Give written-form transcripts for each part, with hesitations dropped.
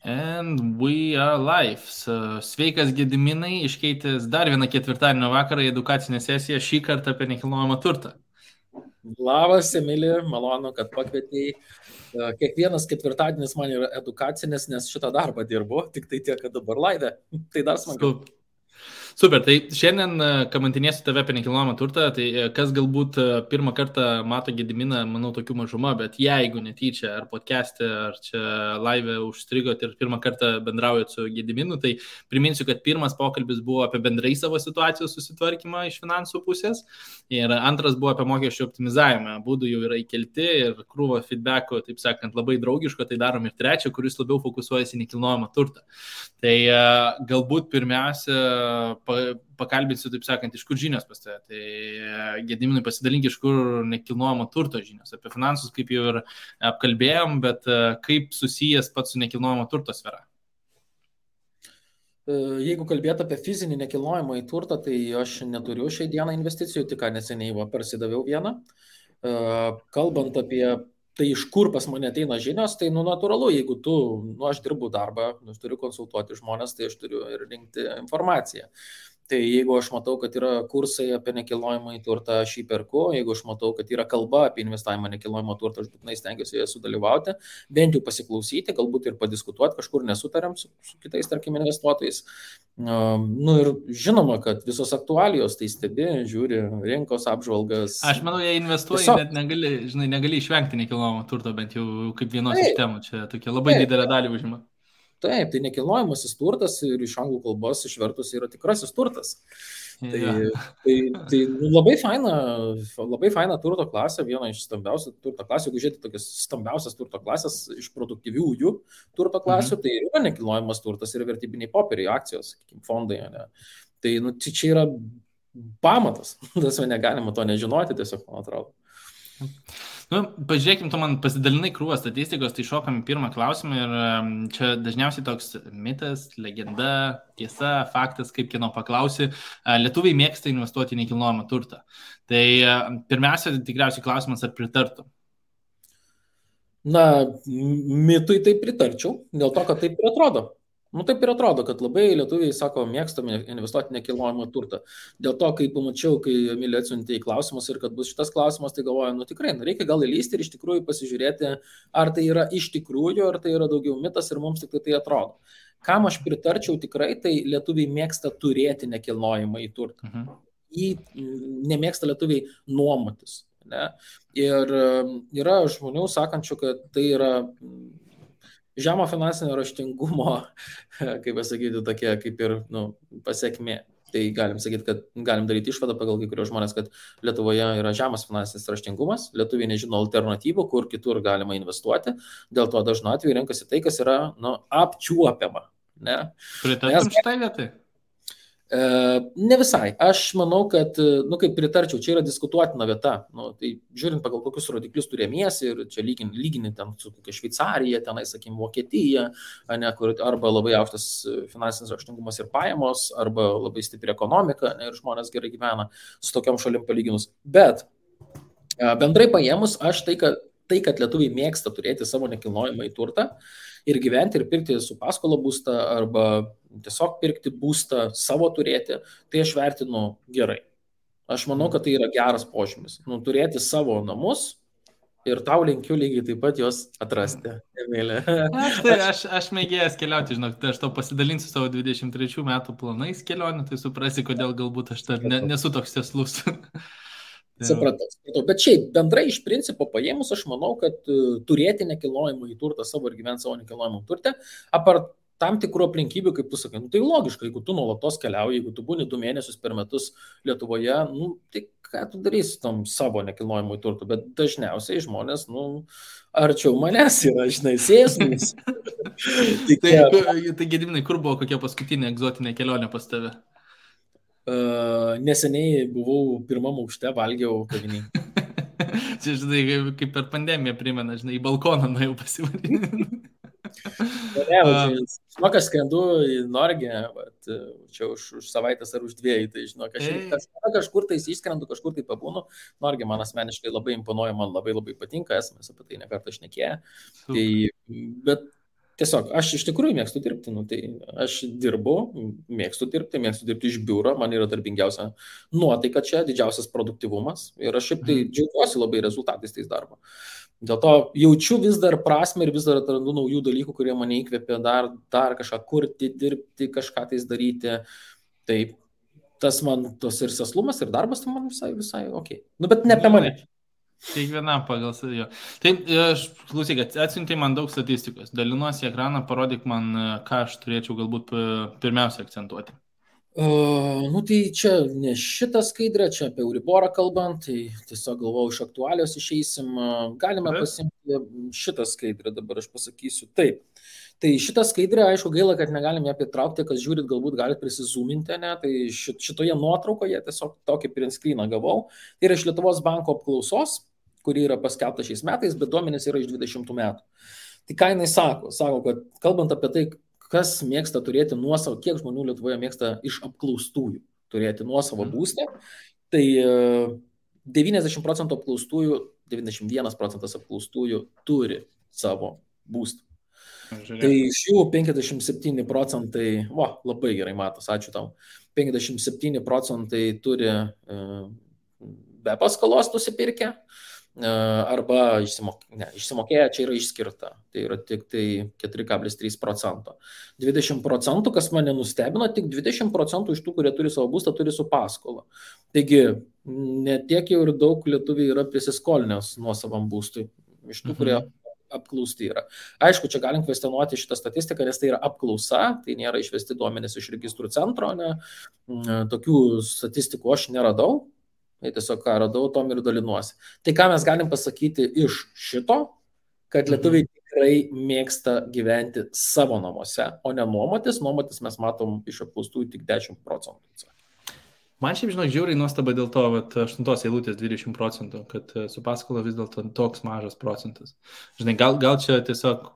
And we are live. Sveikas Gediminai, iškeitęs dar vieną ketvirtadienio vakarą į edukacinę sesiją, šį kartą apie nekilnojamą turtą. Labas, Emilija, malonu, kad pakvietėjai. Kiekvienas ketvirtadienis man yra edukacinis, nes šitą darbą dirbu, tik tai tiek, kad dabar laivė. Tai dar smagiau. Super, tai šiandien kamantinėsiu tave apie nekilnojamą turtą, tai kas galbūt pirmą kartą mato Gediminą, manau, tokių mažuma, bet jeigu netyčia ar podcast'e, ar čia live užstrigot ir pirmą kartą bendraujat su Gediminu, tai priminsiu, kad pirmas pokalbis buvo apie bendrai savo situacijos susitvarkymą iš finansų pusės ir antras buvo apie mokesčių optimizavimą. Būdų jau yra įkelti ir krūvo feedbacko, taip sakant, labai draugiško, tai darom ir trečią, kuris labiau fokusuojasi į nekilnojamą turtą. Tai galbūt pirmiausia pakalbėsiu, taip sakant, iš kur žinios pas tave. Tai Gediminai pasidalink, iš kur nekilnojamo turto žinios. Apie finansus, kaip jau ir apkalbėjom, bet kaip susijęs pats su nekilnojamo turto sfera? Jeigu kalbėt apie fizinį nekilnojamą į turtą, tai aš neturiu šiai dieną investicijų, tik neseniai parsidaviau vieną. Kalbant apie tai, iš kur pas mane ateina žinios, tai natūralu, jeigu aš dirbu darbą, aš turiu konsultuoti žmonės, tai aš turiu ir rinkti informaciją. Tai jeigu aš matau, kad yra kursai apie nekilnojamą į turtą, aš jį perku. Jeigu aš matau, kad yra kalba apie investavimą nekilnojamą turtą, aš būtinai stengiuosi joje sudalyvauti, bent jau pasiklausyti, galbūt ir padiskutuoti, kažkur nesutariam su kitais, tarkim, investuotojais. Ir žinoma, kad visos aktualijos tai stebi, žiūri rinkos apžvalgas. Aš manau, jei investuoji, net negali išvengti nekilnojamo turto, bent jau kaip vienos iš temų. Čia tokia labai didelė dalį užima. Taip, tai nekilnojamasis turtas ir iš anglų kalbos išvertus yra tikrasis turtas. Tai labai faina turto klasė, viena iš stambiausių turto klasių. Jeigu žiūrėti tokias stambiausias turto klasės iš produktyviųjų turto klasių, tai yra nekilnojamas turtas ir vertybiniai popieriai, akcijos, fondai. Ne? Tai čia yra pamatas. Tas negalima to nežinoti, tiesiog, man atrodo. Pažiūrėkim, tu man pasidalinai krūvą statistikos, tai šokam į pirmą klausimą ir čia dažniausiai toks mitas, legenda, tiesa, faktas, kaip kieno paklausi, lietuviai mėgsta investuoti į nekilnojamą turtą. Tai pirmiausia, tikriausiai klausimas, ar pritartum? Mitui tai pritarčiau, dėl to, kad taip ir atrodo. Taip ir atrodo, kad labai lietuviai, sako, mėgstame investuoti nekilnojamą turtą. Dėl to, kai pamačiau, kai Emilija atsiuntė į klausimus ir kad bus šitas klausimas, tai galvoju, tikrai, reikia gal įlysti ir iš tikrųjų pasižiūrėti, ar tai yra iš tikrųjų, ar tai yra daugiau mitas ir mums tik tai atrodo. Kam aš pritarčiau tikrai, tai lietuviai mėgsta turėti nekilnojamą į turtą. Jį nemėgsta lietuviai nuomotis. Ne? Ir yra žmonių sakančių, kad tai yra žemo finansinio raštingumo, kaip pasakyti, tokia kaip ir pasiekmė. Tai galim sakyti, kad galim daryti išvadą pagal kai kurios žmonės, kad Lietuvoje yra žemas finansinis raštingumas, lietuviai nežino alternatyvų, kur kitur galima investuoti, dėl to dažnu atveju renkasi tai, kas yra apčiuopiama. Pritartum šitai vietai? Ne visai. Aš manau, kad, kaip pritarčiau, čia yra diskutuotina vieta. Tai žiūrint pagal kokius rodiklius turėmiesi ir čia lygini ten su kokia Šveicarija, tenai, sakykim, Vokietija, arba labai aukštas finansinis raštingumas ir pajamos, arba labai stipri ekonomika ir žmonės gerai gyvena su tokiam šalim palyginus. Bet bendrai paėmus, aš tai, kad lietuviai mėgsta turėti savo nekilnojamą į turtą ir gyventi ir pirkti su paskola būstą arba tiesiog pirkti būstą savo turėti, tai aš vertinu gerai. Aš manau, kad tai yra geras požymis. Turėti savo namus ir tau linkiu lygiai taip pat juos atrasti, Emilė. Aš mėgėjęs keliauti, žinok, tai aš tau pasidalinsiu savo 23 metų planais kelionių, tai suprasi, kodėl galbūt aš nesu toks tieslus. Supratau. Bet šiaip bendrai iš principo paėmus, aš manau, kad turėti nekilnojamą į turtą savo ir gyventi savo nekilnojamą turtą, apart tam tikrų aplinkybių, kaip tu sakai, tai logiška, jeigu tu nuolatos keliauji, jeigu tu būni 2 mėnesius per metus Lietuvoje, tai ką tu darysi tam savo nekilnojamą į turtą, bet dažniausiai žmonės, arčiau manęs yra, sėsmės. Tai Gediminai, kur buvo kokia paskutinė egzotinė kelionė pas tave? Neseniai buvau 1. aukšte, valgiau kavinėj. Čia, žinai, kaip per pandemiją primena, žinai, į balkoną nuėjau pasivaryti. Žinok, aš skrendu į Norgiją, čia už savaitės ar už 2, tai žinok, aš kažkur tai išskrendu, kažkur tai pabūnu. Norgija man asmeniškai labai imponuoja, man labai patinka, esame apie tai nekartą šnekėję. Bet Tiesiog, aš iš tikrųjų mėgstu dirbti, nu, tai aš dirbu, mėgstu dirbti iš biuro, man yra darbingiausia nuotaika čia, didžiausias produktivumas ir aš šiaip tai džiaugiuosi labai rezultatais tais darbo. Dėl to jaučiu vis dar prasme ir vis dar atrandu naujų dalykų, kurie mane įkvėpia dar kažką kurti, dirbti, kažką tais daryti. Tai tas man tos ir sėslumas, ir darbas, tai man visai ok. Nu, bet ne apie mane. Kiekvienam pagal savio. Tai aš klausyk, atsiuntė man daug statistikos. Dalinuosi ekraną, parodyk man, ką aš turėčiau galbūt pirmiausia akcentuoti. Nu tai čia ne šitą skaidrę, čia apie Euriborą kalbant, tai tiesiog galvau, iš aktualios išeisim. Galime pasimti šitą skaidrę, dabar aš pasakysiu. Taip. Tai šitą skaidrę, aišku, gaila, kad negalime ją pritraukti, kas žiūrit, galbūt galite prisizoominti, ne? Tai šitoje nuotraukoje tiesiog tokį print screeną gavau. Tai yra iš Lietuvos banko apklausos, kuri yra paskelbta šiais metais, bet duomenys yra iš 20 metų. Tai ką jinai sako? Sako, kad kalbant apie tai, kas mėgsta turėti nuosavą, kiek žmonių Lietuvoje mėgsta iš apklaustųjų turėti nuosavą būstą, tai 90% apklaustųjų, 91% apklaustųjų turi savo būstą. Tai iš jų 57 procentai, labai gerai matos, ačiū tau, 57 procentai turi be paskolos nusipirkę, arba išsimokėję, čia yra išskirta, tai yra tik tai 4,3%. 20%, kas mane nustebino, tik 20% iš tų, kurie turi savo būstą, turi su paskola. Taigi, netiek jau ir daug lietuviai yra prisiskolinęs nuosavam būstui, iš tų, kurie apklausti yra. Aišku, čia galim kvestionuoti šitą statistiką, nes tai yra apklausa, tai nėra išvesti duomenys iš registrų centro, ne? Tokių statistikų aš neradau. Tai tiesiog ką radau, tom ir dalinuosi. Tai ką mes galim pasakyti iš šito, kad lietuviai tikrai mėgsta gyventi savo namuose, o ne nuomotis. Nuomotis mes matom iš apklaustųjų tik 10%. Man šiaip, žinok, žiauriai nuostaba dėl to, 8 eilutės 20%, kad su paskola vis dėlto toks mažas procentas. Žinai, gal čia tiesiog,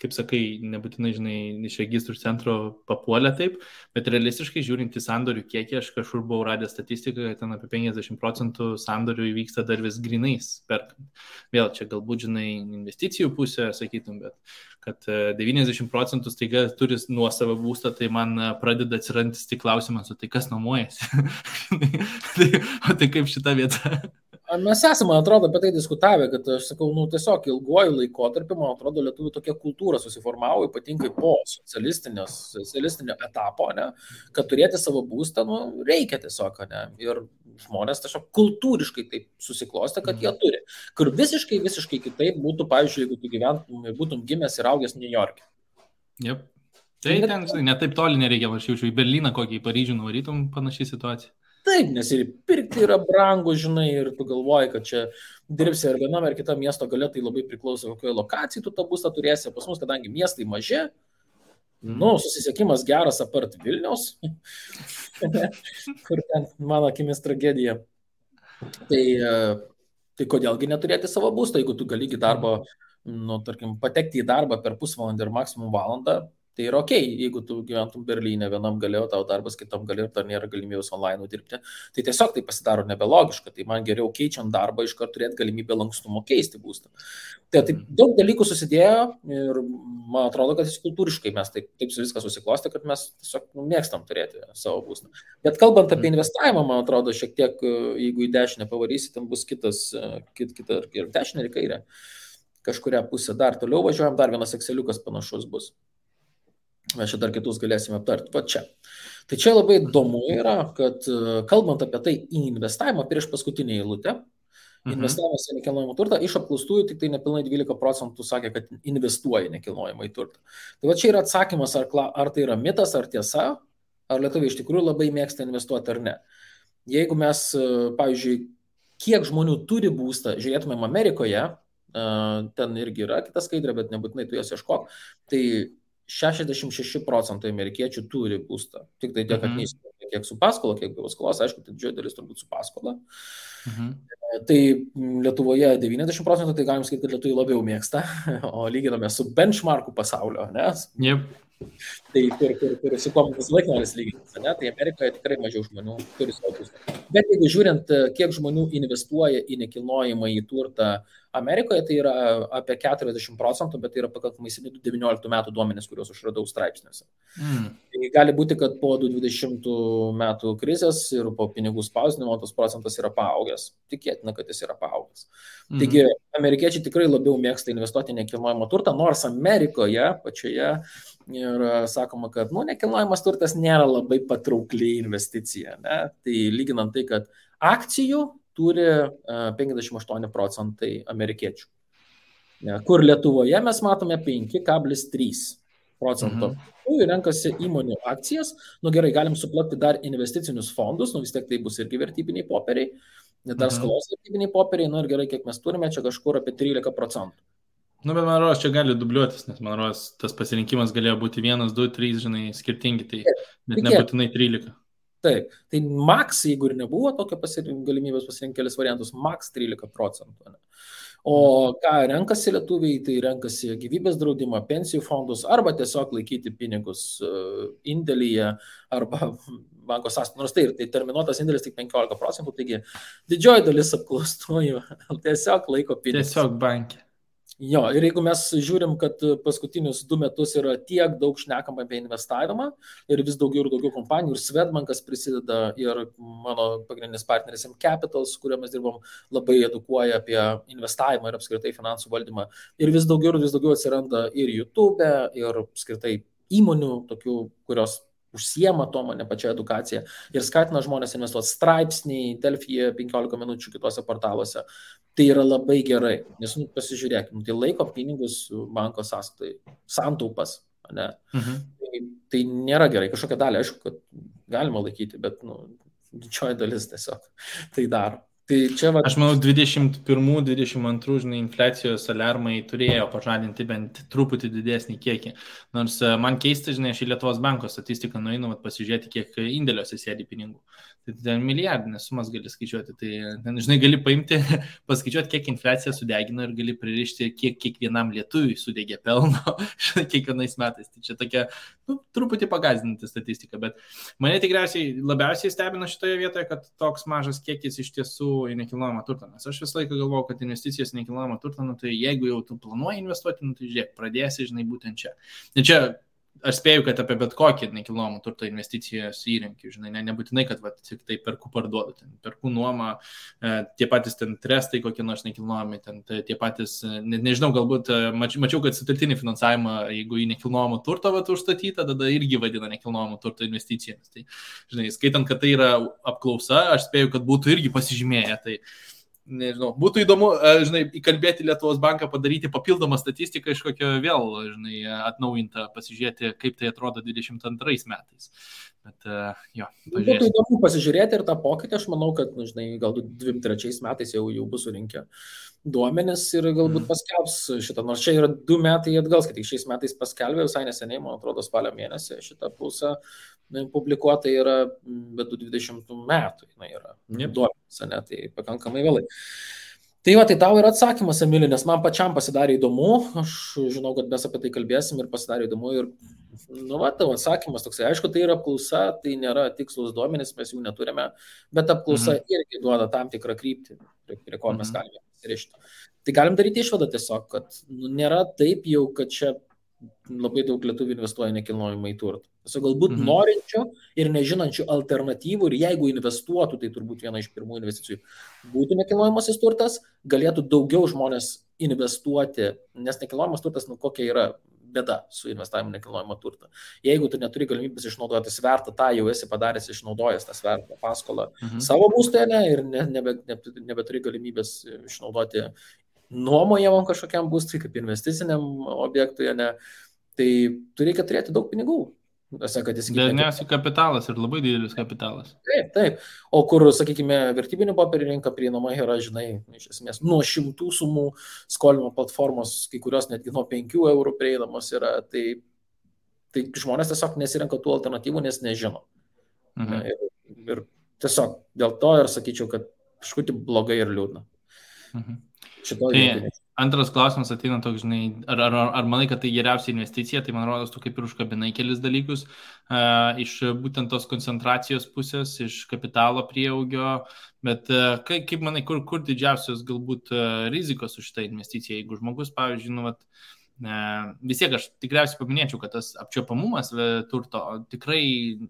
kaip sakai, nebūtinai, žinai, iš registrų centro papuolė taip, bet realistiškai žiūrint į sandorių kiekį, aš kažkur buvau radęs statistiką, kad ten apie 50% sandorių įvyksta dar vis grinais perkant. Vėl čia galbūt, žinai, investicijų pusė, sakytum, bet kad 90% staiga turi nuosavą būstą, tai man pradeda atsirantis tik klausimas, o tai kas nuomojasi? Tai kaip šita vieta? Mes esame, man atrodo, apie tai diskutavę, kad aš sakau, tiesiog ilguoju laikotarpiu, man atrodo, lietuvių tokia kultūra susiformavo, ypatingai po socialistinio etapo, ne, kad turėti savo būstą, reikia tiesiog, ne, ir žmonės tiesiog kultūriškai taip susiklostė, kad jie turi. Kur visiškai kitaip būtų, pavyzdžiui, jeigu tu gyventum ir būtum gimęs ir augęs New York'e. Yep. Tai ten, žinai, net taip toli nereikia, aš jaučiu, į Berliną kokį, į Paryžių nuvarytum, panašiai situacija. Taip, nes ir pirkti yra brangu, žinai, ir tu galvoji, kad čia dirbsi ar vienam ar kitam miesto gale, tai labai priklauso, kokioje lokacijai tu tą būstą turėsi. Pas mus, kadangi miestai maži, susisiekimas geras apart Vilniaus, kur ten mano akimis tragedija. Tai kodėlgi neturėti savo būstą, jeigu tu gali į darbą, tarkim, patekti į darbą per pusvalandį ir maksimum valandą. Tai yra ok, jeigu tu gyventum Berlyne, vienam galėjo, tau darbas kitam galėjo, dar nėra galimybės online dirbti. Tai tiesiog tai pasidaro nebelogiška, tai man geriau keičiant darbą iš karto turėti galimybę lankstumo keisti būstą. Tai daug dalykų susidėjo ir man atrodo, kad kultūriškai mes taip viską susiklostė, kad mes tiesiog mėgstam turėti savo būstą. Bet kalbant apie investavimą, man atrodo, šiek tiek, jeigu į dešinę pavarysi, ten bus kita ir dešinė ir kairė. Kažkuria pusė dar toliau važiuojam, dar vienas Exceliukas panašus bus. Mes čia dar kitus galėsime aptarti. Va čia. Tai čia labai įdomu yra, kad kalbant apie tai į investavimą prieš paskutinį eilutę, investavimas į nekilnojamą turtą, iš apklaustųjų tik tai nepilnai 12% sakė, kad investuoja į nekilnojamą turtą. Tai va čia yra atsakymas, ar tai yra mitas, ar tiesa, ar lietuviai iš tikrųjų labai mėgsta investuoti ar ne. Jeigu mes, pavyzdžiui, kiek žmonių turi būstą, žiūrėtumėm Amerikoje, ten irgi yra kita skaidrė, bet nebūtinai tu jas ieškok, tai 66% amerikiečių turi būstą. Tik tai tiek, kad neįsivaizduoja, kiek su paskola, kiek be paskolos, aišku, tai didžioji dalis turbūt su paskola. Tai Lietuvoje 90%, tai galim sakyti, kad lietuviai labiau mėgsta, o lyginame su benchmarku pasaulio, nes Tai kur su kuo visą laiką noris lygintis, ne? Tai Amerikoje tikrai mažiau žmonių turi savo būstą. Bet jeigu žiūrint, kiek žmonių investuoja į nekilnojimą į turtą Amerikoje, tai yra apie 40%, bet tai yra pakankamai seni 19 metų duomenys, kuriuos aš radau straipsniuose. Tai gali būti, kad po 2020 metų krizės ir po pinigų spausdinimo tas procentas yra paaugęs. Tikėtina, kad jis yra paaugęs. Taigi, amerikiečiai tikrai labiau mėgsta investuoti į nekilnojamą turtą, nors Amerikoje pačioje ir sakoma, kad nekilnojamas turtas nėra labai patraukli investicija. Ne? Tai lyginant tai, kad akcijų turi 58% amerikiečių. Kur Lietuvoje mes matome 5,3%. Renkasi įmonių akcijas. Gerai, galim suplakti dar investicinius fondus, vis tiek tai bus irgi vertybiniai popieriai, dar skolos vertybiniai popieriai, ir gerai, kiek mes turime, čia kažkur apie 13%. Bet man rodos, čia gali dubliuotis, nes man rodos, tas pasirinkimas galėjo būti 1, 2, 3, skirtingi, tai net nebūtinai 13. Taip, tai max, jeigu ir nebuvo tokio galimybės pasirinkti kelis variantus, max 13%. O ką renkasi lietuviai, tai renkasi gyvybės draudimą, pensijų fondus, arba tiesiog laikyti pinigus indėlyje, arba banko sąskaitoje. Nors tai terminuotas indėlis tik 15%, taigi didžioji dalis apklaustųjų tiesiog laiko pinigus. Tiesiog bankė. Jo, ir jeigu mes žiūrim, kad paskutinius 2 metus yra tiek daug šnekama apie investavimą ir vis daugiau ir daugiau kompanijų, ir Swedbankas prisideda, ir mano pagrindinis partneris M Capital, su kuriuo mes dirbam, labai edukuoja apie investavimą ir apskritai finansų valdymą. Ir vis daugiau atsiranda ir YouTube, ir apskritai įmonių, tokių, kurios užsiema to, ne pačia edukacija, ir skatina žmonės investuoti straipsniai, Delfyje 15 minučių kitose portaluose. Tai yra labai gerai, nes pasižiūrėkime, tai laiko pinigus banko sąskaitai, santaupas, ne? Tai nėra gerai, kažkokią dalį, aišku, kad galima laikyti, bet didžioji dalis tiesiog tai daro. Tai čia, aš manau, 21-22 infliacijos alarmai turėjo pažadinti bent truputį didesnį kiekį. Nors man keista, aš į Lietuvos banko statistiką nueinu pasižiūrėti, kiek indėliuose sėdi pinigų. Tai ten milijardinės sumas gali skaičiuoti. Tai ten, gali paimti, paskaičiuoti, kiek infliacija sudegino ir gali pririšti, kiek kiekvienam lietuviui sudegė pelno kiekvienais metais. Tai čia tokia truputį pagazdinanti statistika. Bet mane tikriausiai labiausiai stebina šitoje vietoje, kad toks mažas kiekis iš tiesų į nekilnojamą turtą. Nes aš visą laiką galvoju, kad investicijos į nekilnojamą turtą, tai jeigu jau tu planuoji investuoti, tai žiūrėk, pradėsi, būtent čia. Ir čia aš spėju, kad apie bet kokį nekilnojamą turtą investicijos įrankį, nebūtinai, kad tik tai perku parduodu, perku nuomą, tie patys trestai, kokie nors nekilnojami, tie patys, nežinau, galbūt mačiau, kad sutelktinį finansavimą, jeigu į nekilnojamą turtą užstatyta, tada irgi vadina nekilnojamą turtą investicijomis. Tai, skaitant, kad tai yra apklausa, aš spėju, kad būtų irgi pasižymėję. Tai nežinau, būtų įdomu, įkalbėti Lietuvos banką, padaryti papildomą statistiką iš kokio vėl, atnaujintą, pasižiūrėti, kaip tai atrodo 22 metais. Bet, jo, būtų įdomu pasižiūrėti ir tą pokytį, aš manau, kad, galbūt 23 metais jau bus surinkę duomenis ir galbūt paskelbs šitą, nors čia yra 2 metai atgal, kad tik šiais metais paskelbė, visai neseniai, man atrodo, spalio mėnesį šitą pulsą publikuota yra, bet 20 metų yra duomenis, tai pakankamai vėlai. Tai va, tai tau yra atsakymas, Emili, nes man pačiam pasidarė įdomu, aš žinau, kad mes apie tai kalbėsim ir pasidarė įdomu ir, tavo atsakymas toksai, aišku, tai yra apklausa, tai nėra tikslus duomenys, mes jų neturime, bet apklausa irgi duoda tam tikrą kryptį, prie ko mes galime pasirišti. Tai galim daryti išvadą tiesiog, kad nėra taip jau, kad čia labai daug lietuvių investuoja nekilnojamą į turtą. Tiesiog galbūt norinčių ir nežinančių alternatyvų ir jeigu investuotų, tai turbūt viena iš pirmų investicijų būtų nekilnojamasis turtas, galėtų daugiau žmonės investuoti, nes nekilnojamas turtas, kokia yra bėda su investavimu nekilnojamą turtą. Jeigu tu neturi galimybės išnaudoti svertą, tą jau esi padaręs, išnaudojęs tą svertą paskolą savo būstą ir nebeturi galimybės išnaudoti nuomojamam kažkokiam būstui, kaip investiciniam objektui, tai tu reikia turėti daug pinigų. Dažniausiai kapitalas ir labai didelis kapitalas. Taip. O kur, sakykime, vertybinių popierių rinka prieinama yra, iš esmės, nuo 100 sumų skolimo platformos, kai kurios netgi nuo 5 eurų prieinamos yra, tai žmonės tiesiog nesirenka tų alternatyvų, nes nežino. Ir tiesiog dėl to ir sakyčiau, kad kažkaip blogai ir liūdna. Tai Antras klausimas ateina toks, žinai, ar manai, kad tai geriausia investicija, tai man rodos, tu kaip ir užkabinai kelis dalykus iš būtent tos koncentracijos pusės, iš kapitalo prieaugio, bet kaip manai, kur didžiausios galbūt rizikos už šitą investiciją, jeigu žmogus, pavyzdžiui, nu, vat, vis tiek aš tikriausiai paminėčiau, kad tas apčiuopamumas turto tikrai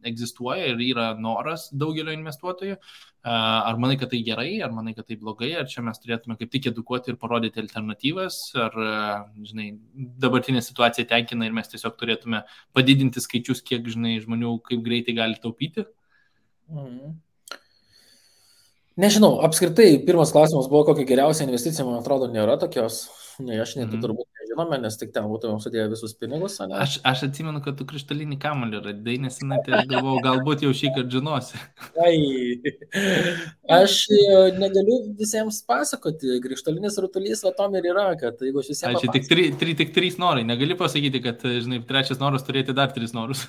egzistuoja ir yra noras daugelio investuotojų. Ar manai, kad tai gerai, ar manai, kad tai blogai, ar čia mes turėtume kaip tik edukuoti ir parodyti alternatyvas, ar, žinai, dabartinė situacija tenkina ir mes tiesiog turėtume padidinti skaičius, kiek, žinai, žmonių kaip greitai gali taupyti? Nežinau, apskritai, pirmas klausimas buvo, kokia geriausia investicija, man atrodo, nėra tokios. Ne, aš net turbūt nežinome, nes tik ten būtumėm sudėję visus pinigus. Aš atsimenu, kad tu krištolinį kamuolį radai, nesenai, tai aš galvojau, galbūt jau šį kartą žinosi. Aš negaliu visiems pasakoti, krištolinis rutulys, va tom ir yra, kad jeigu aš visiems... Tik 3 norai, negali pasakyti, kad, žinai, trečias noras turėti dar 3 norus.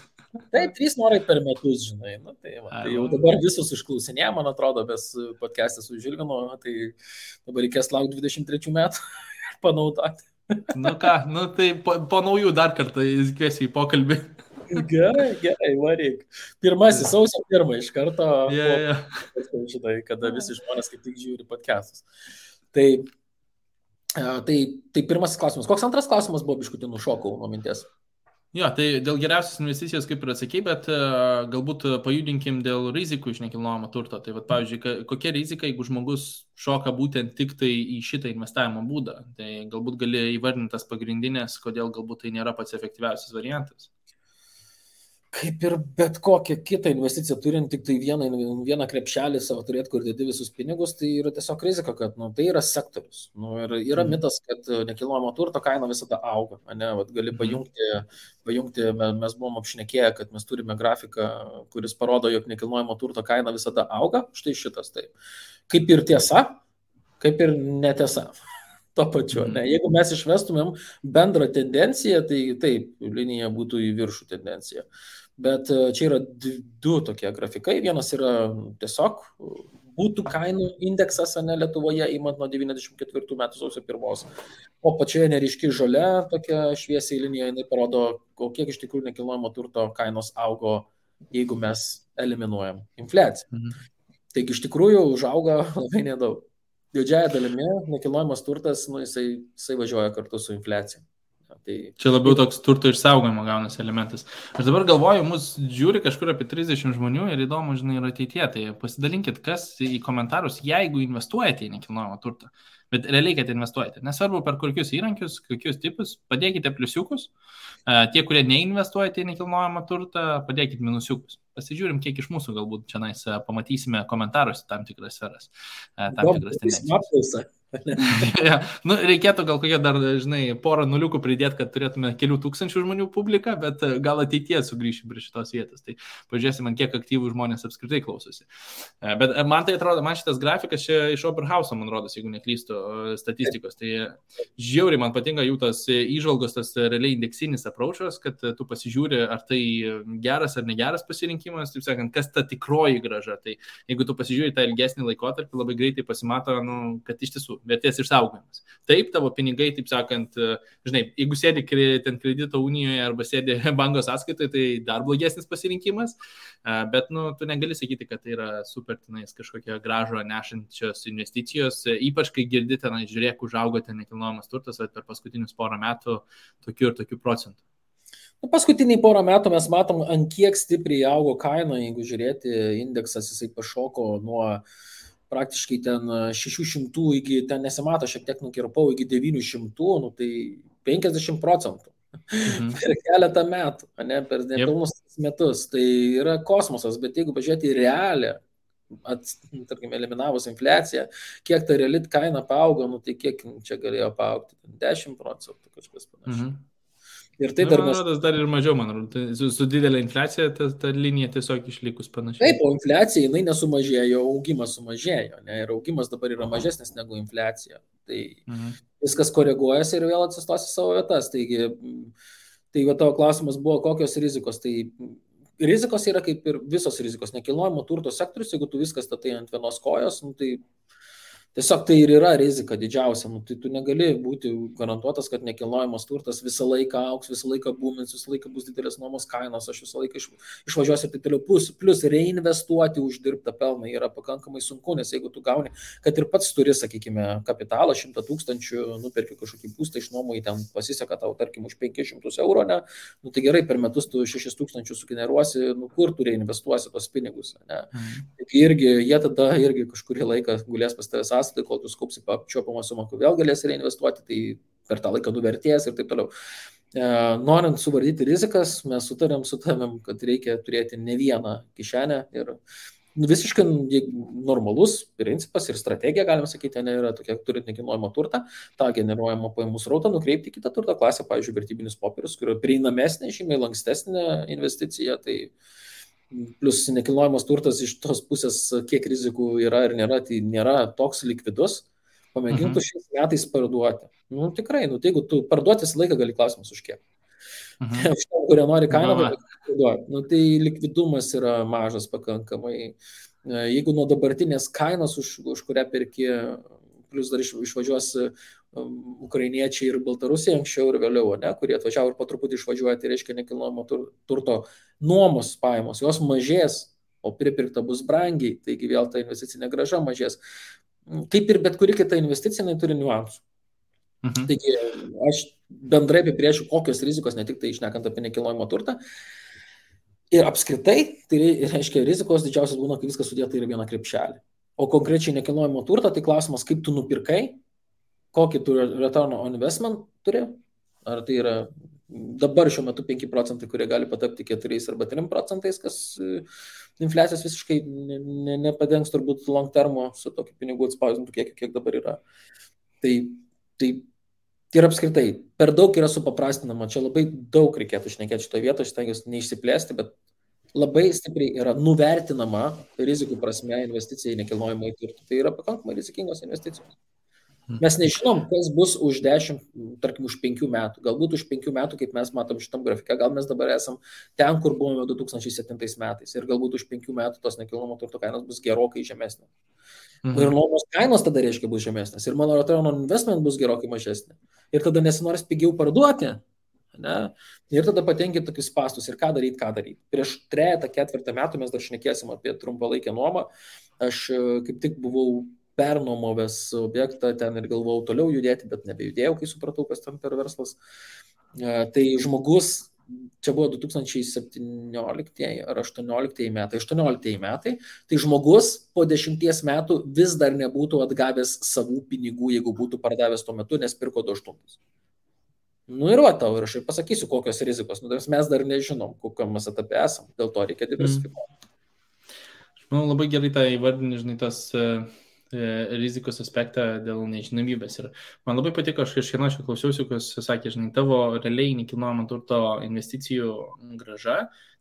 Taip, 3 norai per metus, žinai, nu, tai jau dabar visus išklausinė, man atrodo, bez podcast'ą su Žilvinu, tai dabar reikės laukti 23 metų. Panaudoti. Nu ką, nu tai po naujų dar kartą kviesiu į pokalbį. Gerai, varyk. Pirmasis, sausio 1 iš karto. Žinai, kada visi žmonės kaip tik žiūri podcastus. Tai pirmasis klausimas. Koks antras klausimas buvo, biškutį nušokau nuo minties? Jo, tai dėl geriausios investicijos kaip ir atsakei, bet galbūt pajudinkim dėl rizikų iš nekilnojamo turto. Tai vat, pavyzdžiui, kokia rizika, jeigu žmogus šoka būtent tik tai į šitą investavimo būdą? Tai galbūt gali įvardinti tas pagrindinės, kodėl galbūt tai nėra pats efektyviausias variantas. Kaip ir bet kokią kitą investiciją turint tik tai vieną krepšelį savo turėti, kur dėdi visus pinigus, tai yra tiesiog rizika, kad tai yra sektorius. Ir yra mitas, kad nekilnojamo turto kaina visada auga. Vat gali pajungti, mes buvom apšnekėję, kad mes turime grafiką, kuris parodo, jog nekilnojamo turto kaina visada auga. Štai šitas taip. Kaip ir tiesa, kaip ir netiesa. To pačiu. Jeigu mes išvestumėm bendrą tendenciją, tai taip, linija būtų į viršų tendencija. Bet čia yra 2 tokie grafikai. Vienas yra tiesiog būtų kainų indeksas Lietuvoje, imant nuo 94 metų sausio 1. O pačioje neryški žalia, tokia šviesiai linija, jinai parodo, kiek iš tikrųjų nekilnojamo turto kainos augo, jeigu mes eliminuojam infliaciją. Taigi iš tikrųjų užauga labai nedaug. Didžiąją dalimi nekilnojamas turtas, jisai važiuoja kartu su infliacija. Tai... Čia labiau toks turto išsaugojimo gaunasi elementas. Aš dabar galvoju, mus žiūri kažkur apie 30 žmonių ir įdomu, žinai, ir ateityje. Tai pasidalinkit, kas į komentarus, jeigu investuojate į nekilnojamą turtą. Bet realiai, kad investuojate. Nesvarbu per kokius įrankius, kokius tipus, padėkite pliusiukus. Tie, kurie neinvestuojate į nekilnojamą turtą, padėkite minusiukus. Pasižiūrim, kiek iš mūsų galbūt čia pamatysime komentaruose tam tikras sferas. Tam tikras tendencijas. Ja, reikėtų gal kokie dar, žinai, porą nuliukų pridėti, kad turėtume kelių tūkstančių žmonių publiką, bet gal ateityje sugrįšim prie šitos vietos. Tai pažiūrėsim, kiek aktyvų žmonės apskritai klausosi. Bet man tai atrodo, man šitas grafikas čia iš Oberhauso, man rodos, jeigu neklystu, statistikos. Tai žiauriai man patinka jų tas įžvalgos, tas realiai indeksinis approachas, kad tu pasižiūri, ar tai geras ar negeras pasirinkimas, taip sakant, kas ta tikroji grąža. Tai jeigu tu pasižiūri tą ilgesnį laikotarpį, labai greitai pasimato, kad iš tiesų vertės išsaugojimas. Taip, tavo pinigai, taip sakant, žinai, jeigu sėdi ten kredito unijoje arba sėdi banko sąskaitoje, tai dar blogesnis pasirinkimas, bet tu negali sakyti, kad tai yra super tenais kažkokia gražo nešančios investicijos, ypač kai girdite, žiūrėk, užaugo ten nekilnojamas turtas, per paskutinius porą metų tokių ir tokių procentų. Paskutiniai porą metų mes matom, ant kiek stipriai augo kaina, jeigu žiūrėti, indeksas jisai pašoko nuo praktiškai ten 600 iki, ten nesimato, šiek tiek nukirpau, iki 900, tai 50%. Per keletą metų, per nepilnus metus. Tai yra kosmosas, bet jeigu pažiūrėti į realią, tarkim, eliminavus infliaciją, kiek ta reali kaina paaugo, tai kiek čia galėjo paaugti? 10%, kažkas panašiai. Ir tai dar mes... dar ir mažiau, man atrodo, su didelė infliacija ta linija tiesiog išlikus panašiai. Taip, o infliacija, jinai nesumažėjo, augimas sumažėjo, ir augimas dabar yra mažesnis negu infliacija. Tai viskas koreguojasi ir vėl atsistos į savo vietas. Tai tavo klausimas buvo, kokios rizikos. Tai rizikos yra kaip ir visos rizikos. Nekilnojamo turto sektorius, jeigu tu viskas statai ant vienos kojos, tai Tiesiog tai ir yra rizika didžiausia. Nu, tai tu negali būti garantuotas, kad nekilnojamas turtas visą laiką auks, visą laiką būmins, visą laiką bus didelės nuomos kainos, aš visą laiką išvažiuosiu ir taip toliau. Plus reinvestuoti uždirbtą pelną yra pakankamai sunku, nes jeigu tu gauni, kad ir pats turi, sakykime, kapitalą 100 000, nuperki kažkokį būstą išnuomoji, ten pasiseka tau, tarkim, už 500 eurų, ne? Nu, tai gerai, per metus tu 6 000 sugeneruosi, nu, kur tu reinvestuosi tos pinigus, ne? Taigi irgi, jie tada irgi kažkurį laiką gulės pas tavęs sąskaitai, kol tu skaupsi apčiuopamą sumą, kur vėl galėsi reinvestuoti, tai per tą laiką nuvertės ir taip toliau. Norint suvaldyti rizikas, mes sutarėm su tavim, kad reikia turėti ne vieną kišenę ir visiškai normalus principas ir strategija, galima sakyti, yra tokia, turint nekilnojamą turtą, tą generuojamą pajamų srautą nukreipti kitą turto klasę, pavyzdžiui, vertybinius popierius, kurio prieinamesnė, žymiai lankstesnė investicija, tai plus nekilnojamas turtas iš tos pusės, kiek rizikų yra ir nėra, tai nėra toks likvidus, pamėgintų šiais metais parduoti. Nu, tikrai, tai jeigu tu parduoti visą laiką gali, klausimas už kiek. Už to, kurie nori kainą, parduoti. Nu, tai likvidumas yra mažas pakankamai. Jeigu nuo dabartinės kainos, už kurią perki, plus dar išvažiuos ukrainiečiai ir baltarusiai anksčiau ir vėliau, ne, kurie atvažiavo ir po truputį išvažiuoja, tai reiškia nekilnojamo turto nuomos pajamos, jos mažės, o pripirkta bus brangiai, taigi vėl ta investicinė grąža mažės. Kaip ir bet kuri kita investicija, jinai turi niuansų. Taigi aš bendrai apibrėžiu, kokios rizikos, ne tik tai išnekant apie nekilnojamo turtą. Ir apskritai, tai reiškia, rizikos didžiausias būna, kai viskas sudėta į vieną krepšelį. O konkrečiai nekilnojamo turtą, tai klausimas, kaip tu nupirkai, kokį tu return on investment turi, ar tai yra dabar šiuo metu 5%, kurie gali patapti 4 arba 3%, kas infliacijos visiškai nepadengs turbūt long termo su tokiu pinigų atspausdintų kiek dabar yra. Tai ir apskritai, per daug yra supaprastinama, čia labai daug reikėtų šnekėti šitoje vietoje, aš stengiuosi neišsiplėsti, bet labai stipriai yra nuvertinama rizikų prasme investicija į nekilnojamą turtą. Tai yra pakankamai rizikingos investicijos. Mes nežinom, kas bus už 10, tarkim, už 5 metų. Galbūt už 5 metų, kaip mes matom šitam grafike, gal mes dabar esam ten, kur buvome 2007 metais. Ir galbūt už 5 metų tos nekilnojamo turto kainos bus gerokai žemesnės. Ir nuomos kainos tada reiškia bus žemesnės. Ir mano return on investment bus gerokai mažesnė. Ir tada nesinorės pigiau parduoti. Ne? Ir tada patenki tokius spastus. Ir ką daryti. Prieš 3-4 metų mes dar šnekėsim apie trumpalaikę nuomą. Aš kaip tik buvau pernuomovęs objektą ten ir galvojau toliau judėti, bet nebejudėjau, kai supratau, kas ten per verslas. Tai žmogus, čia buvo 2017 ar 2018 metai, tai žmogus po 10 metų vis dar nebūtų atgavęs savų pinigų, jeigu būtų pardavęs tuo metu, nes pirko 28. Nu ir va tau, ir aš ir pasakysiu, kokios rizikos. Mes dar nežinom, kokiam mes etape esam, dėl to reikia diversifikuoti. Aš manau, labai gerai tą įvardinį, žinai, tas rizikos aspektą dėl nežinomybės. Ir man labai patiko, aš kažkieno aš klausiausi, kas sakė, žinai, tavo realiai nekilnojamo turto investicijų grąža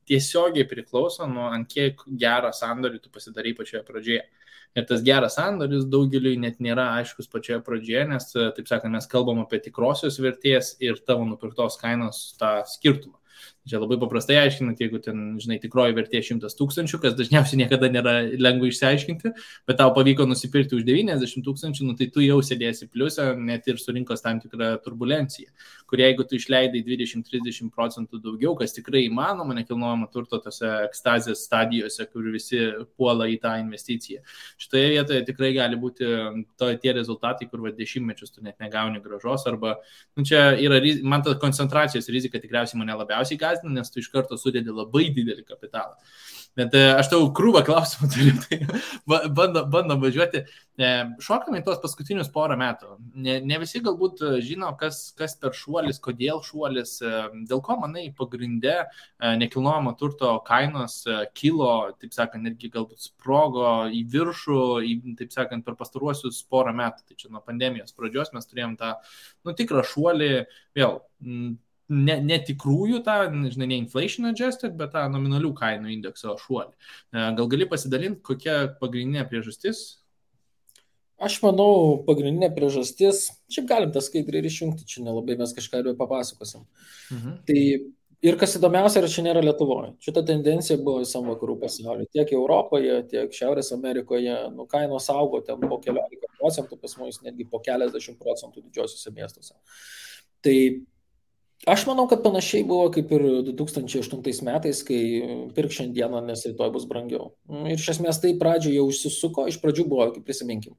tiesiogiai priklauso nuo ant kiek gerą sandorį tu pasidarai pačioje pradžioje. Ir tas geras sandoris daugeliui net nėra aiškus pačioje pradžioje, nes, taip sakant, mes kalbam apie tikrosios vertės ir tavo nupirktos kainos tą skirtumą. Čia labai paprastai aiškinant, jeigu ten, žinai, tikroji vertė 100 000, kas dažniausiai niekada nėra lengva išsiaiškinti, bet tau pavyko nusipirkti už 90 000, nu tai tu jau sėdėsi pliusą, net ir surinkos tam tikrą turbulenciją, kur jeigu tu išleidai 20-30% daugiau, kas tikrai įmanoma nekilnojamo turto tose ekstazės stadijose, kur visi puola į tą investiciją. Šitoje vietoje tikrai gali būti tie rezultatai, kur 10 metus tu net negauni grąžos, arba, nu čia yra, man ta koncentracijos rizika tikriausiai mane labiausiai gąsdina, nes tu iš karto sudedi labai didelį kapitalą. Bet aš tau krūvą klausimų turiu, tai bandom važiuoti. Šokame į tos paskutinius porą metų. Ne visi galbūt žino, kas per šuolis, kodėl šuolis, dėl ko, manai, pagrinde nekilnojamo turto kainos kilo, taip sakant, netgi galbūt sprogo į viršų, taip sakant, per pastaruosius porą metų. Tai čia nuo pandemijos pradžios mes turėjom tą, tikrą šuolį, vėl, ne tikrųjų tą, žinai, ne inflation adjusted, bet tą nominalių kainų indekso šuolį. Gal gali pasidalinti, kokia pagrindinė priežastis? Aš manau, pagrindinė priežastis, šiaip galim tą skaidrį ir išjungti, čia nelabai mes kažką ir papasakosim. Tai Ir kas įdomiausia, čia nėra Lietuvoje. Šita tendencija buvo visam vakarų pasaulyje. Tiek Europoje, tiek Šiaurės Amerikoje. Kainos augo ten po keliolika procentų, pas mus netgi po keliasdešimt procentų didžiosiuose miestuose. Tai aš manau, kad panašiai buvo kaip ir 2008 metais, kai pirk šiandieną, nes rytoj bus brangiau. Ir iš esmės tai pradžioje jau užsisuko. Iš pradžių buvo, kaip prisiminkim,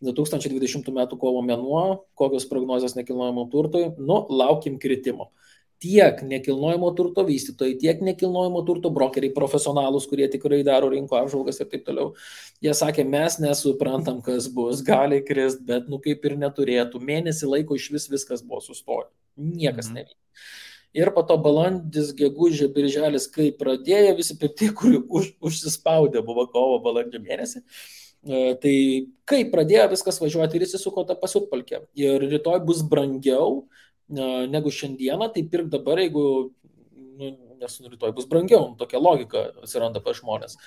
2020 metų kovo mėnuo, kokios prognozės nekilnojamo turtui, laukim kritimo. Tiek nekilnojamo turto vystytojai, tiek nekilnojamo turto brokeriai, profesionalus, kurie tikrai daro rinko apžvalgas ir taip toliau. Jie sakė, mes nesuprantam, kas bus, gali krist, bet kaip ir neturėtų. Mėnesį laiko iš viskas buvo sustoję. Niekas nevyko. Ir po to balandis, gegužė, birželis, kai pradėjo visi pirkti, kurių užsispaudė buvo kovo, balandžio mėnesį. Tai kai pradėjo viskas važiuoti ir įsisuko tą pasiutpalkę. Ir rytoj bus brangiau negu šiandieną, tai pirk dabar, jeigu, nes rytoj bus brangiau, tokia logika atsiranda pas žmonės,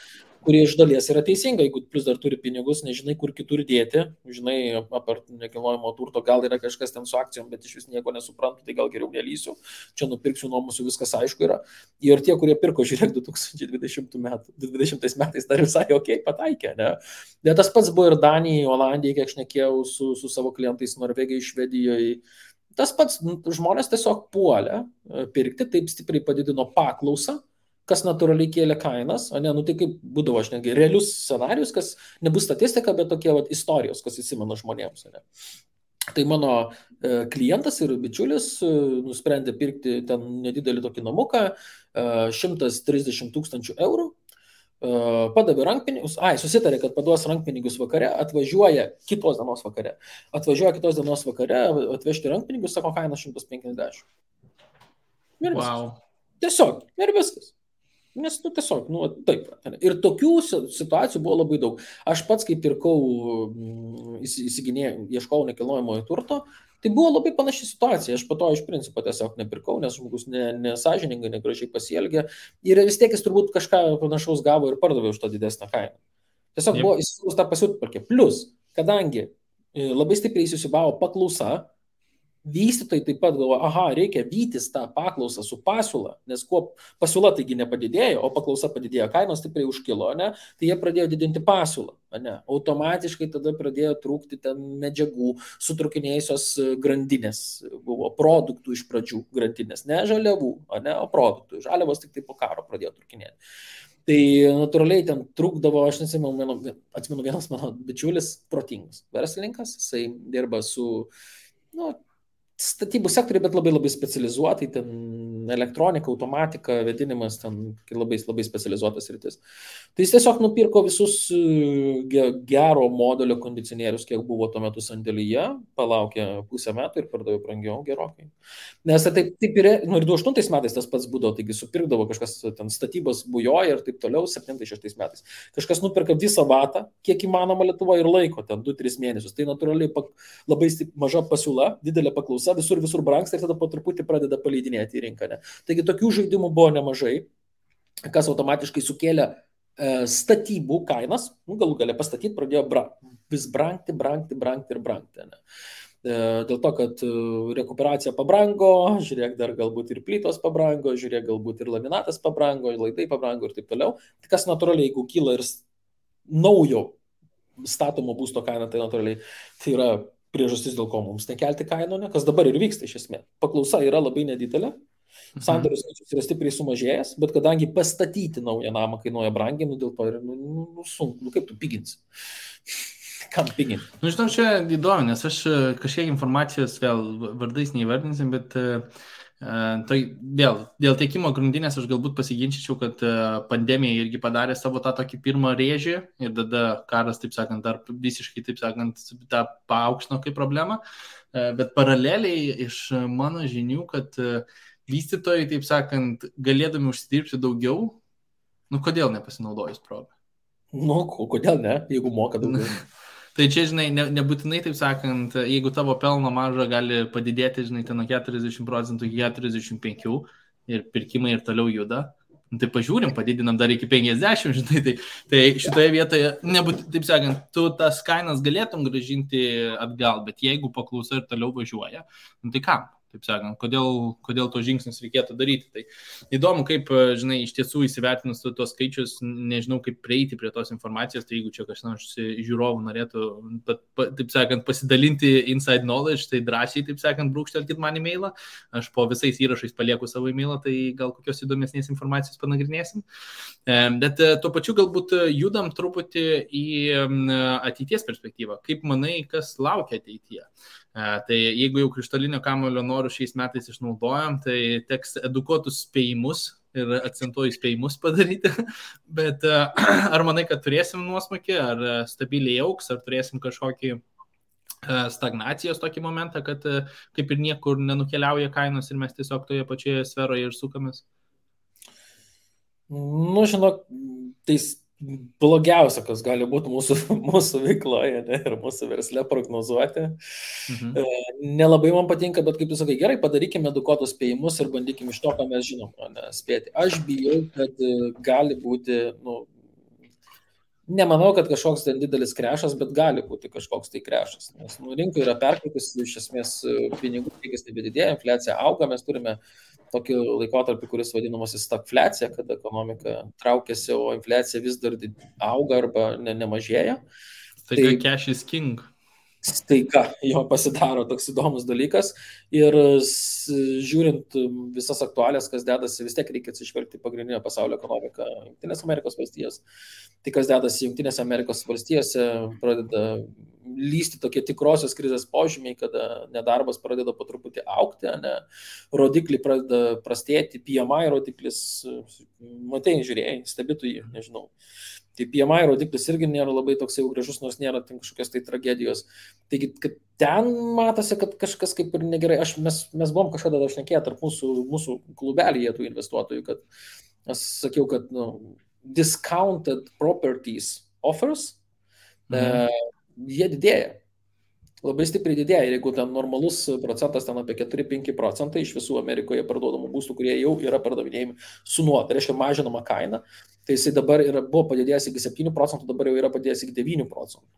kurie iš dalies yra teisinga, jeigu plus dar turi pinigus, nežinai, kur kitur dėti, žinai, apart nekilnojamo turto, gal yra kažkas ten su akcijom, bet iš vis nieko nesuprantu, tai gal geriau nelysiu, čia nupirksiu, nuomosiu, viskas aišku yra. Ir tie, kurie pirko, žiūrėk, 2020 metais dar visai pataikė, ne? Bet tas pats buvo ir Danijai, Olandijai, kiek aš šnekėjau su savo klientais Norvegijai, Švedijoje. Tas pats žmonės tiesiog puolė pirkti, taip stipriai padidino paklausą, kas natūraliai kėlė kainas, o ne, tai kaip būdavo, aš netgi realius scenarius, kas nebus statistika, bet tokie istorijos, kas įsimena žmonėms. Ne. Tai mano klientas ir bičiulis nusprendė pirkti ten nedidelį tokį namuką, 130 000 eurų. Padavė rankpinigus, susitarė, kad paduos rankpinigus vakare, atvažiuoja kitos dienos vakare, atvežti rankpinigus, sako, kaina 150. Ir wow. Tiesiog, ir viskas. Nes, tiesiog, taip. Ir tokių situacijų buvo labai daug. Aš pats, kai pirkau, ieškau nekilnojamojo turto, tai buvo labai panaši situacija. Aš po to iš principo tiesiog nepirkau, nes žmogus nesąžiningai, negražiai pasielgė. Ir vis tiek jis turbūt kažką panašaus gavo ir pardavė už tą didesnę kainą. Tiesiog buvo įsivaizduos tą pasiutpalkę. Plus, kadangi labai stipriai įsisiūbavo paklausa, vystytojai taip pat galvoja, reikia vytis tą paklausą su pasiūla, nes kuo pasiūla taigi nepadidėjo, o paklausa padidėjo, kainos stipriai užkilo, ne? Tai jie pradėjo didinti pasiūlą. Ne? Automatiškai tada pradėjo trūkti ten medžiagų, sutrukinėjusios grandinės, buvo produktų iš pradžių grandinės, ne žaliavų, ne? O produktų. Žaliavos tik tai po karo pradėjo trūkinėti. Tai natūraliai ten trūkdavo, aš atsimenu, vienas mano bičiulis, protingas verslininkas, jisai dirba su statybų sektoriai, bet labai labai specializuotai, ten elektronika, automatika, vėdinimas, ten labai specializuotas rytis. Tai jis tiesiog nupirko visus gero modelio kondicionierius, kiek buvo tuo metu sandėlyje, palaukė pusę metų ir pardavė brangiau gerokai. Nes taip ir 2008 metais tas pats būdavo, taigi supirkdavo kažkas, ten statybos bujoja ir taip toliau, 2007-2006 metais. Kažkas nuperka visą vatą, kiek įmanoma Lietuvoje ir laiko, ten 2-3 mėnesius. Tai natūraliai labai maža pasiūla, didelė paklausa, visur brangsta ir tada po truputį pradeda paleidinėti į rinką. Ne? Taigi tokių žaidimų buvo nemažai, kas automatiškai sukėlė statybų kainas, galų galia pastatyti pradėjo vis brangti. Ne? Dėl to, kad rekuperacija pabrango, žiūrėk, dar galbūt ir plytos pabrango, žiūrėk, galbūt ir laminatas pabrango, laidai pabrango ir taip toliau. Tai kas natūraliai, jeigu kyla ir naujo statomo būsto kaina, tai natūraliai tai yra priežastis, dėl ko mums nekelti kainų, ne? Kas dabar ir vyksta iš esmės. Paklausa yra labai nedidelė, sandorių skaičius yra stipriai sumažėjęs, bet kadangi pastatyti naują namą kainuoja brangiai, dėl to yra sunku, kaip tu piginsi. Kam piginti? Žinau, čia įdomu, nes aš kažkiek informacijos vėl vardais neįvardinsim, bet tai vėl, dėl tiekimo grandinės aš galbūt pasiginčyčiau, kad pandemija irgi padarė savo tą tokį pirmą rėžį ir tada karas, taip sakant, dar visiškai, taip sakant, tą paaukštino kaip problemą, bet paraleliai iš mano žinių, kad vystytojai, taip sakant, galėdami užsidirbti daugiau, kodėl nepasinaudojus progą? Kodėl ne, jeigu moka daugiau? Tai čia, žinai, nebūtinai, taip sakant, jeigu tavo pelno marža gali padidėti, žinai, ten nuo 40% iki 45% ir pirkimai ir toliau juda, tai pažiūrim, padidinam dar iki 50%, žinai, tai šitoje vietoje, taip sakant, tu tas kainas galėtum grąžinti atgal, bet jeigu paklausa ir toliau važiuoja, tai kam? taip sakant, kodėl to žingsnius reikėtų daryti. Tai įdomu, kaip, žinai, iš tiesų įsivertinus tuos skaičius, nežinau, kaip prieiti prie tos informacijos, tai jeigu čia kažkas žiūrovų norėtų, taip sakant, pasidalinti inside knowledge, tai drąsiai, taip sakant, brūkštelkit man e-mailą, aš po visais įrašais palieku savo e-mailą, tai gal kokios įdomesnės informacijos panagrinėsim. Bet tuo pačiu galbūt judam truputį į ateities perspektyvą. Kaip manai, kas laukia ateityje? Tai jeigu jau krištolinio kamuolio norų šiais metais išnaudojam, tai teks edukuotus spėjimus ir akcentuoju spėjimus padaryti. Bet ar manai, kad turėsim nuosmukį, ar stabiliai augs, ar turėsim kažkokį stagnacijos tokį momentą, kad kaip ir niekur nenukeliauja kainos ir mes tiesiog toje pačioje sferoje ir sukamės? Nu, žinok, tai blogiausia, kas gali būti mūsų veikloje, ne, ir mūsų versle prognozuoti. Nelabai man patinka, bet kaip tu sakai, gerai, padarykime edukuotus spėjimus ir bandykime iš to, ką mes žinom, ne, spėti. Aš bijau, kad gali būti, nemanau, kad kažkoks ten didelis krešas, bet gali būti kažkoks tai krešas. Nes rinka yra perkaitus, iš esmės pinigų kiekis nebedidėja, infliacija auga, mes turime tokį laikotarpį, kuris vadinamas stagfliacija, kada ekonomika traukiasi, o infliacija vis dar auga arba nemažėja. Staiga cash is king. Staiga jo pasidaro toks įdomus dalykas ir žiūrint visas aktualės, kas dedasi, vis tiek reikia atsižvelgti pagrindinę pasaulio ekonomiką Jungtinės Amerikos valstijos. Tai kas dedasi Jungtinės Amerikos valstijose, pradeda lysti tokie tikrosios krizės požymiai, kada nedarbas pradeda po truputį augti, rodikliai pradeda prastėti, PMI rodiklis, matai, žiūrėjai, stebėtų jį, nežinau. Tai PMI rodiklis irgi nėra labai toks jau gražus, nors nėra kažkokios tai tragedijos. Taigi, kad ten matosi, kad kažkas kaip ir negerai. Mes buvom kažkada šnekėję tarp mūsų klubelyje tų investuotojų, kad aš sakiau, kad discounted properties offers, jie didėja. Labai stipriai didėja. Ir jeigu ten normalus procentas ten apie 4-5 procentai iš visų Amerikoje parduodamų būstų, kurie jau yra pardavinėjami su nuo, tai reiškia mažinama kaina, tai jisai dabar buvo padidėjęs iki 7 procentų, dabar jau yra padidėjęs iki 9 procentų.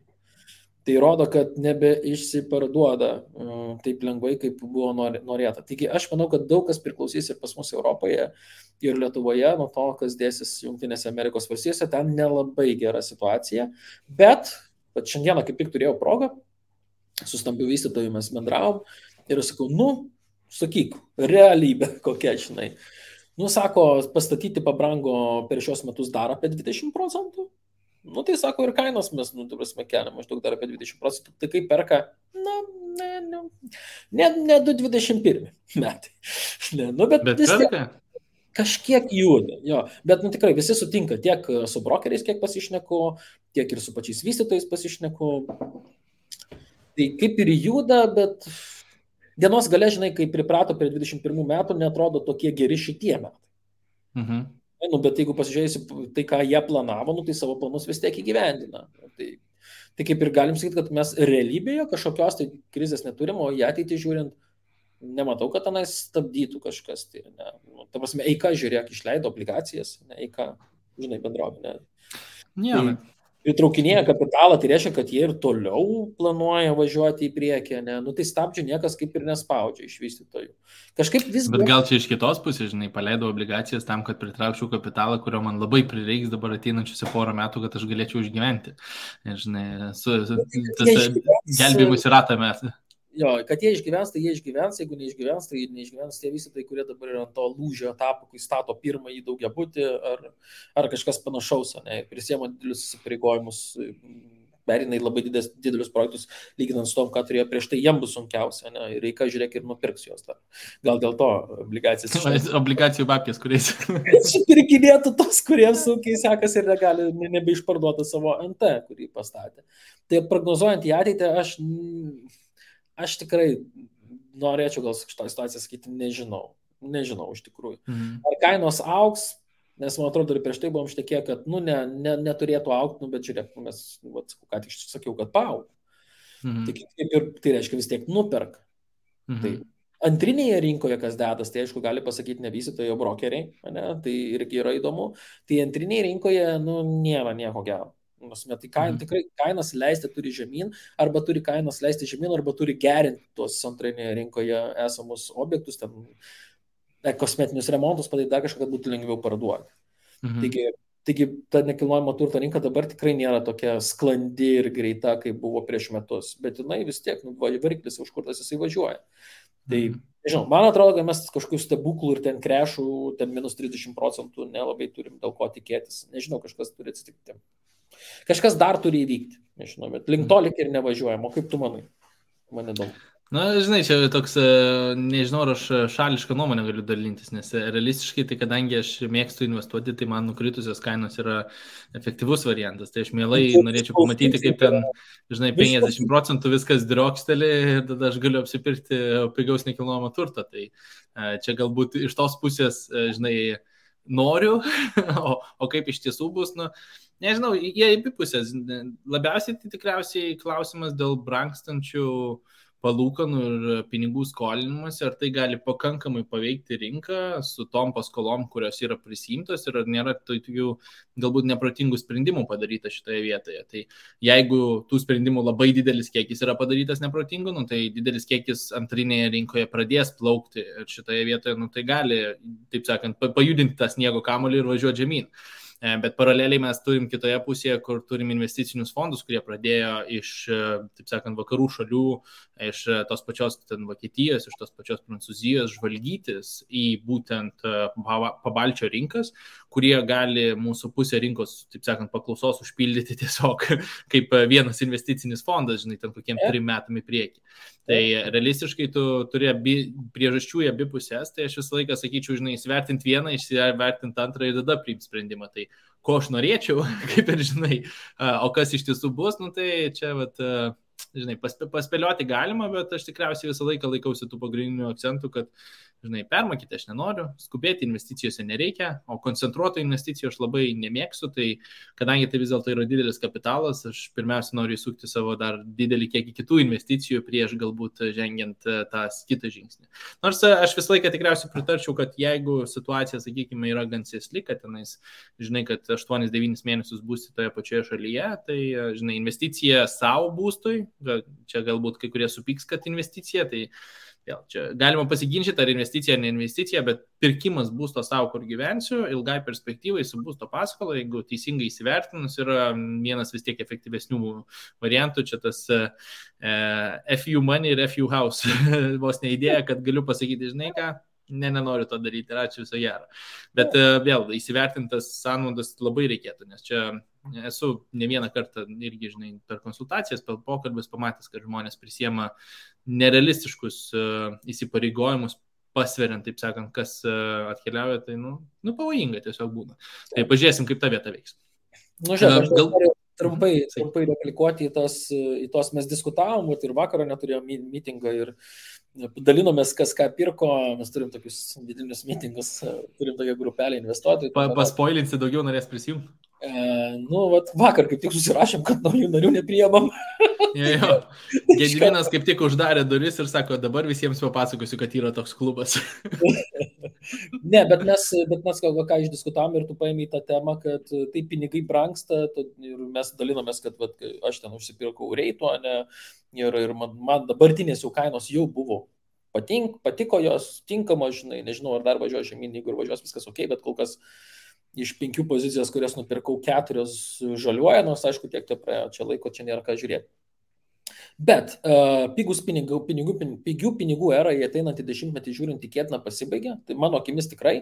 Tai rodo, kad nebeišsiparduoda taip lengvai, kaip buvo norėta. Taigi aš manau, kad daug kas priklausys ir pas mus Europoje ir Lietuvoje nuo to, kas dėsis Jungtinėse Amerikos valstijose, ten nelabai gera situacija, bet šiandieną kaip tik turėjau progą, su stambiu vystytoju mes bendravom ir aš sakau, sakyk, realybė kokia, žinai. Sako, pastatyti pabrango per šios metus dar apie 20 procentų. Tai sako, ir kainos mes, keliam maždaug dar apie 20 procentų. Tai kaip perka, ne 2021 metai. Bet vis tiek kažkiek juda. Jo. Bet tikrai visi sutinka, tiek su brokeriais, kiek pasišneku, tiek ir su pačiais vystytojais pasišneku. Tai kaip ir juda, bet dienos gale, žinai, kai priprato prie 21 metų, netrodo tokie geri šitie metai. Bet jeigu pasižiūrėsi tai, ką jie planavo, tai savo planus vis tiek įgyvendina. Tai kaip ir galim sakyti, kad mes realybėje kažkokios tai krizės neturim, o į ateitį žiūrint, nematau, kad tenais stabdytų kažkas. Tai, ta prasme, eika žiūrėk, išleido obligacijas, eika, žinai, bendrovė. Įtraukinėja kapitalą, tai reiškia, kad jie ir toliau planuoja važiuoti į priekį, tai stabdžių niekas kaip ir nespaudžia iš vystytojų. Kažkaip vis... Bet gal čia iš kitos pusės, žinai, paleido obligacijas tam, kad pritraukčiau kapitalą, kurio man labai prireiks dabar ateinančiuose porą metų, kad aš galėčiau išgyventi. Ir, žinai, gelbėjimus į ratą mes. Jo, kad jie išgyvens, tai jie išgyvens, jeigu neišgyvens, tai neišgyvens tie vystytojai, kurie dabar yra ant to lūžio etapo, kai stato pirmąjį daugiabutį ar kažkas panašaus, ir prisiema didelius įsipareigojimus, perina į labai didelius projektus, lyginant su tom, ką turėjo prieš tai, jiem bus sunkiausia, ir reikia žiūrėk ir nupirks jos dar. Gal dėl to obligacijas. Obligacijų babkės, kuriais. Supirkinėtų tos, kuriems sunkiai sekas ir negali nebeišparduoti savo NT, kurį pastatė. Tai prognozuojant į ateitį, aš tikrai norėčiau gal šitą situaciją sakyti, nežinau iš tikrųjų. Ar kainos augs, nes man atrodo ir prieš tai buvom šnekėję, kad neturėtų augti, bet žiūrėk, mes, ką tik sakiau, kad paaug. Tai reiškia vis tiek nuperka. Tai antrinėje rinkoje, kas dedas, tai aišku gali pasakyti ne vystytojai, o brokeriai, tai irgi yra įdomu. Tai antrinėje rinkoje nėra nieko gero. Tai tikrai kainas leisti turi žemyn, arba turi kainas leisti žemyn, arba turi gerinti tuos antrinėje rinkoje esamus objektus, ten kosmetinius remontus padaryti dar kažką, kad būtų lengviau parduoti. Taigi ta nekilnojamo turto rinka dabar tikrai nėra tokia sklandi ir greita, kaip buvo prieš metus, bet jinai vis tiek, variklis užkurtas jisai važiuoja. Tai, nežinau, man atrodo, kad mes kažkokių stebuklų ir ten krešų, ten minus 30% nelabai turim dėl ko tikėtis. Nežinau, kažkas turi atsitikti. Kažkas dar turi įvykti, nežinau, bet link to lik ir nevažiuojam. O kaip tu manai? Man įdomu. Na, žinai, čia toks, nežinau, ar aš šališką nuomonę galiu dalintis, nes realistiškai, tai kadangi aš mėgstu investuoti, tai man nukritusios kainos yra efektyvus variantas. Tai aš mielai norėčiau pamatyti, kaip ten, žinai, 50% viskas drioksteli ir tada aš galiu apsipirkti pigaus nekilnojamo turto. Tai čia galbūt iš tos pusės, žinai, noriu, o kaip iš tiesų bus, nu, nežinau, jie į pusės. Labiausiai tai tikriausiai klausimas dėl brangstančių palūkanų ir pinigų skolinimas, ar tai gali pakankamai paveikti rinką su tom paskolom, kurios yra prisimtos ir ar nėra tokių galbūt neprotingų sprendimų padaryta šitoje vietoje. Tai jeigu tų sprendimų labai didelis kiekis yra padarytas neprotingų, nu, tai didelis kiekis antrinėje rinkoje pradės plaukti ir šitoje vietoje, nu, tai gali, taip sakant, pajudinti tą sniego kamuolį ir važiuoti žemyn. Bet paraleliai mes turim kitoje pusėje, kur turim investicinius fondus, kurie pradėjo iš, taip sakant, vakarų šalių, iš tos pačios Vokietijos, iš tos pačios Prancūzijos žvalgytis į būtent pabalčio rinkas, kurie gali mūsų pusę rinkos, taip sakant, paklausos užpildyti tiesiog kaip vienas investicinis fondas, žinai, ten kokiem 3 metam į priekį. Tai realistiškai tu turi priežasčių į abi pusės, tai aš visą laiką sakyčiau, žinai, įsivertinti vieną, įsivertinti antrą ir tada priimti sprendimą. Tai ko aš norėčiau, kaip ir žinai, o kas iš tiesų bus, nu tai čia, vat, žinai, paspėlioti galima, bet aš tikriausiai visą laiką laikausi tų pagrindinių akcentų, kad, žinai, permokyti aš nenoriu, skubėti investicijose nereikia, o koncentruoto investicijų aš labai nemėgstu, tai kadangi tai vis dėlto yra didelis kapitalas, aš pirmiausia noriu įsukti savo dar didelį kiekį kitų investicijų prieš galbūt žengiant tą kitą žingsnį. Nors aš visą laiką tikriausiai pritarčiau, kad jeigu situacija, sakykime, yra gan sėsli, kad tenais, žinai, kad 8-9 mėnesius būsi toje pačioje šalyje, tai, žinai, investicija savo būstui, čia galbūt kai kurie supyks, kad investicija, tai vėl, čia galima pasiginčyti, ar investicija, ar ne investicija, bet pirkimas būsto savo, kur gyvensiu, ilgai perspektyvai su būsto paskola, jeigu teisingai įsivertinus, yra vienas vis tiek efektyvesnių variantų, čia tas FU money ir FU house. Vos ne idėja, kad galiu pasakyti, žinai ką, nenoriu to daryti, ir ačiū, viso gero. Bet vėl, įsivertintas sąnaudas labai reikėtų, nes čia esu ne vieną kartą irgi, žinai, per konsultacijas, per pokalbis pamatęs, kad žmonės prisiema nerealistiškus įsipareigojimus, pasveriant, taip sakant, kas atkeliauja, tai, nu, pavojinga tiesiog būna. Tai pažiūrėsim, kaip ta vieta veiks. Nu, žiūrėk, aš noriu trumpai replikuoti į tos mes diskutavom, ir vakarą neturėjom mitingą ir dalinomės, kas ką pirko, mes turim tokius vidinius mitingus, turim tokią grupelę investuotojų. Paspoilinsi, daugiau norės prisijungti? Nu, vat, vakar kaip tik susirašėm, kad naujų narių nepriemam. Jo. Gediminas kaip tik uždarė duris ir sako, dabar visiems papasakosiu, kad yra toks klubas. Ne, bet mes ką išdiskutavom ir tu paėmė į tą temą, kad tai pinigai brangsta ir mes dalinomės, kad vat, aš ten užsipirkau reito, ne, ir man dabartinės jau kainos jau buvo. Patiko jos, tinkamos, žinai, nežinau, ar dar važiuoju žemyn, jeigu ir važiuos viskas ok, bet kol kas iš 5 pozicijos, kurias nupirkau, 4 žaliuoja, nors aišku, tiek tai praėjo, čia laiko, čia nėra ką žiūrėti. Bet pigių pinigų era į ateinantį 10-metį žiūrint tikėtina pasibaigia. Tai mano akimis tikrai,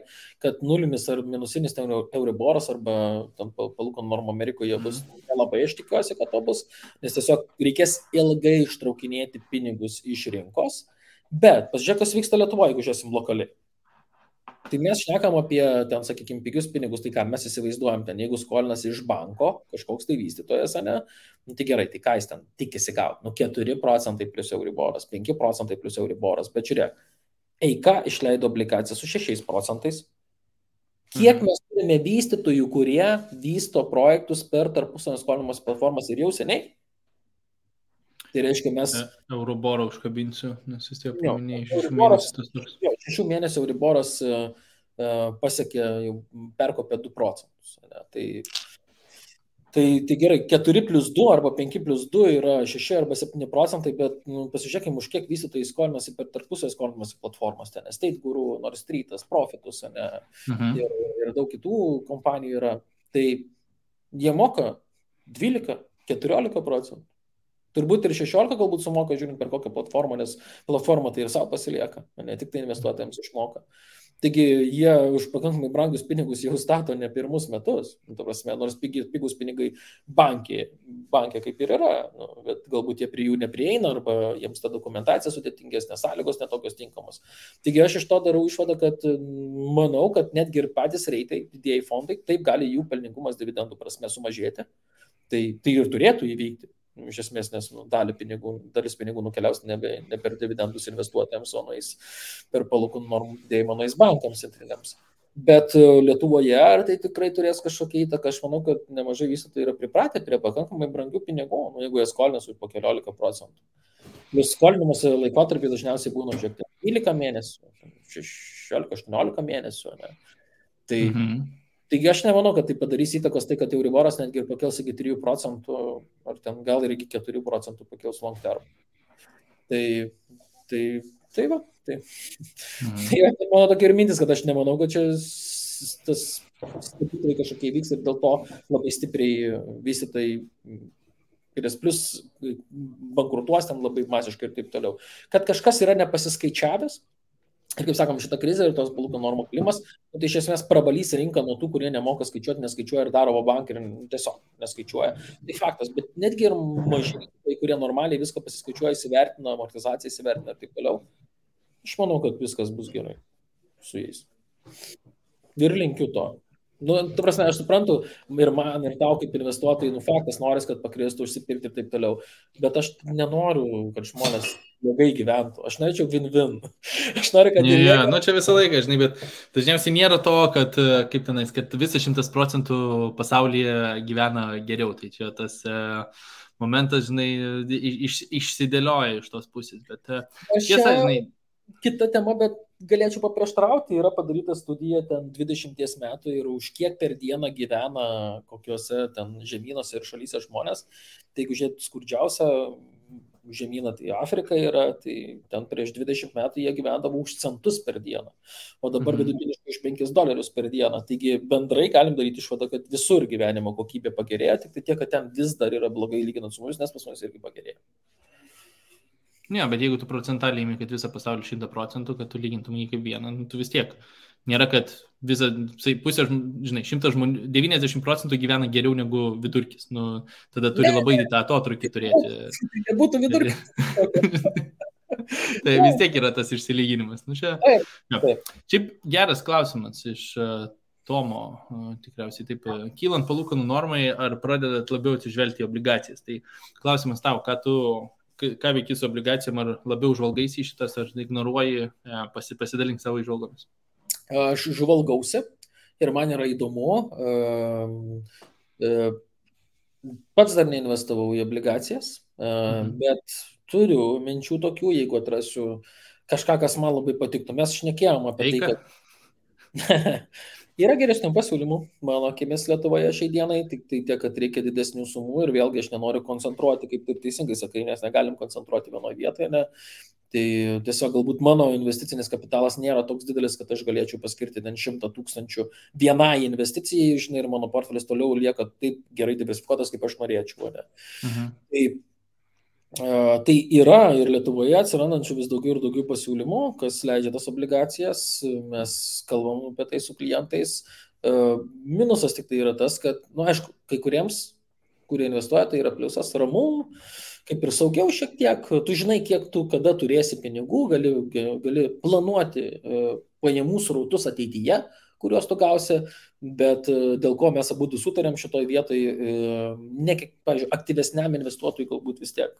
kad nulinis ar minusinis euriboras arba palūkanų normų Amerikoje bus nelabai, aš tikiuosi, kad to bus, nes tiesiog reikės ilgai ištraukinėti pinigus iš rinkos. Bet pasižiūrėk, kas vyksta Lietuvoje, jeigu žiūrėsim lokaliai. Tai mes šnekam apie, ten, sakykime, pigius pinigus, tai ką mes įsivaizduojam ten, jeigu skolinas iš banko, kažkoks tai vystytojas, ne, nu tai gerai, tai ką jis ten tikisi gauti, 4% plus euriboras, 5% plus euriboras, bet žiūrėk, Eika išleido obligacijas su 6%. Kiek mes turime vystytojų, kurie vysto projektus per tarpusavio skolinimosi platformas ir jau seniai? Tai reiškia, mes... Euriborą užkabinsiu, nes vis tiek paminėjai 6 mėnesius. 6 mėnesių Euriboras pasiekė, jau perkopė 2%. Ne? Tai gerai, 4+2 arba 5+2 yra 6 arba 7%, bet pasižiūrėkime, už kiek vystytojai skolinasi per tarpusavio skolinimosi platformas, ten Estate Guru, Nord Streetas, Profitus, ne, ir daug kitų kompanijų yra. Tai jie moka 12-14%. Turbūt ir 16 galbūt sumoka, žiūrint per kokią platformą, nes platforma tai ir savo pasilieka, ne tik tai investuotojams išmoka. Taigi jie už pakankamai brangius pinigus jau stato ne pirmus metus, prasme, nors pigus pinigai bankė kaip ir yra, bet galbūt jie prie jų neprieina arba jiems ta dokumentacija sudėtingesnė, sąlygos netokios tinkamos. Taigi aš iš to darau išvadą, kad manau, kad netgi ir patys reitai, didieji fondai, taip gali jų pelningumas dividendų prasme sumažėti, tai ir turėtų įvykti. Iš esmės, nes dalis pinigų nukeliaus ne per dividendus investuotojams, o nueis per palūkanų normų didėjimą nueis bankams centriniams. Bet Lietuvoje ar tai tikrai turės kažkokią įtaką? Aš manau, kad nemažai vystytojų yra pripratę prie pakankamai brangių pinigų, jeigu jie skolinasi po 14%. Plius skolinimuose laikotarpiai dažniausiai būna žiūrėti 12 mėnesių, 16-18 mėnesių. Ne? Taigi aš nemanau, kad tai padarys įtakos tai, kad Euriboras netgi ir pakels iki 3%, ar ten gal ir iki 4% pakels long term. Tai mano tokia ir mintis, kad aš nemanau, kad čia tas stebuklai kažkokie vyks ir dėl to labai stipriai vystytojai plus bankrutuos ten labai masiškai ir taip toliau. Kad kažkas yra nepasiskaičiavęs, ir kaip sakom, šitą krizę ir tos palūkanų normų kilimas, tai iš esmės prabalys rinką nuo tų, kurie nemoka skaičiuoti, neskaičiuoja ir daro bankai ir tiesiog neskaičiuoja. Tai faktas, bet netgi ir maži, kurie normaliai viską pasiskaičiuoja, įsivertina, amortizaciją įsivertina ir taip toliau. Aš manau, kad viskas bus gerai su jais. Ir linkiu to. Tu prasme, aš suprantu, ir man, ir tau kaip investuotojai, faktas noris, kad pakristų, užsipirkti ir taip toliau. Bet aš nenoriu, kad žmonės blogai gyventų. Aš norėčiau win-win. Aš noriu, kad... Čia visą laiką, žinai, bet dažniausiai nėra to, kad, kaip tenais, kad visi 100% pasaulyje gyvena geriau. Tai čia tas momentas, žinai, išsidėlioja iš tos pusės. Bet tiesa, žinai... Kita tema, bet galėčiau paprieštarauti, yra padaryta studija ten 20 metų ir už kiek per dieną gyvena kokiuose ten žemynuose ir šalyse žmonės. Tai jeigu žiūrėt skurdžiausią žemyną, tai Afrika yra, tai ten prieš 20 metų jie gyvendavo už centus per dieną, o dabar vidutiniškai už $5 per dieną. Taigi bendrai galim daryti išvadą, kad visur gyvenimo kokybė pagerėjo, tik tai tiek, kad ten vis dar yra blogai lyginant su mumis, nes pas mus irgi pagerėjo. Ne, bet jeigu tu procentaliai imi, kad visą pasaulį 100%, kad tu lygintum jį kaip vieną, tu vis tiek. Nėra, kad pusė, žinai, 100 žmonių, 90% gyvena geriau negu vidurkis. Tada turi labai tą atotrukį turėti. Tai būtų vidurkis. Tai vis tiek yra tas išsilyginimas. Šiaip geras klausimas iš Tomo, tikriausiai taip, kylant palūkanų normai, ar pradedat labiau atsižvelgti į obligacijas? Tai klausimas tau, ką veiki su obligacijom, ar labiau žvalgaisi į šitas, ar ignoruoji, pasidalink savo įžvalgomis? Aš žvalgausi ir man yra įdomu. Pats dar neinvestavau į obligacijas, bet turiu minčių tokių, jeigu atrasiu kažką, kas man labai patiktų. Mes šnekėjom apie tai, kad... Yra geresnių pasiūlymų, mano akimis Lietuvoje šiai dienai, tik tai tiek, kad reikia didesnių sumų ir vėlgi aš nenoriu koncentruoti, kaip taip teisingai sakai, nes negalim koncentruoti vienoje vietoje. Ne? Tai tiesiog galbūt mano investicinis kapitalas nėra toks didelis, kad aš galėčiau paskirti 100 000 vienai investicijai, žinai, ir mano portfelis toliau lieka taip gerai diversifikuotas, kaip aš norėčiau. Ne? Tai yra ir Lietuvoje atsirandančių vis daugiau ir daugiau pasiūlymų, kas leidžia tas obligacijas, mes kalbam apie tai su klientais. Minusas tik tai yra tas, kad, aišku, kai kuriems, kurie investuoja, tai yra pliusas, ramu, kaip ir saugiau šiek tiek, tu žinai, kiek tu kada turėsi pinigų, gali planuoti pajamų srautus ateityje, kuriuos tu gausi, bet dėl ko mes abudu sutarėm šitoj vietoj, pavyzdžiui, aktyvesniam investuotojui galbūt vis tiek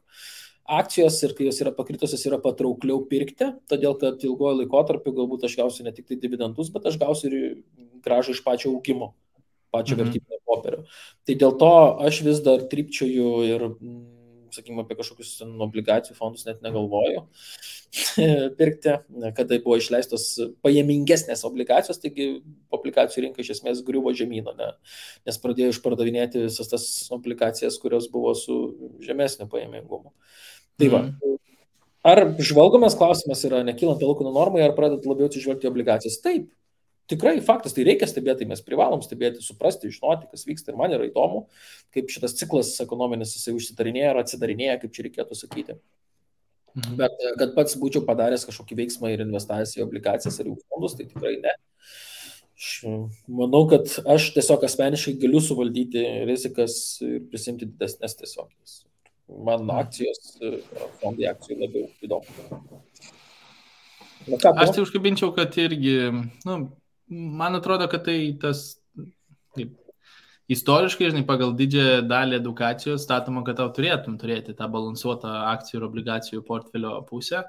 akcijos ir kai jos yra pakritusios, yra patraukliau pirkti, todėl kad ilgojo laikotarpiu galbūt aš gausiu ne tik tai dividendus, bet aš gausiu ir grąžą iš pačio augimo, pačio vertybinio popierio. Tai dėl to aš vis dar trypčioju ir sakykime, apie kažkokius obligacijų fondus net negalvoju pirkti, kada buvo išleistos pajamingesnės obligacijos, taigi obligacijų rinka iš esmės griuvo žemyną, nes pradėjo išpardavinėti visas tas obligacijas, kurios buvo su žemesniu pajamingumu. Tai va. Ar žvalgomas klausimas yra nekylant palūkanų normai, ar pradedat labiau atsižvelgti obligacijas? Taip. Tikrai faktas, tai reikia stebėti, tai mes privalom stebėti, suprasti, žinoti, kas vyksta ir man yra įdomu, kaip šitas ciklas ekonominis jisai užsidarinėja ar atsidarinėja, kaip čia reikėtų sakyti. Bet kad pats būčiau padaręs kažkokį veiksmą ir investavęs į obligacijas ar į fondus, tai tikrai ne. Aš manau, kad aš tiesiog asmeniškai galiu suvaldyti rizikas ir prisimti didesnės tiesiog. Man akcijos, fondai akcijų labiau įdomu. Aš tai užkabinčiau, kad irgi, man atrodo, kad tai tas istoriškai, žinai, pagal didžiąją dalį edukacijos statoma, kad tau turėtum turėti tą balansuotą akcijų ir obligacijų portfelio pusę,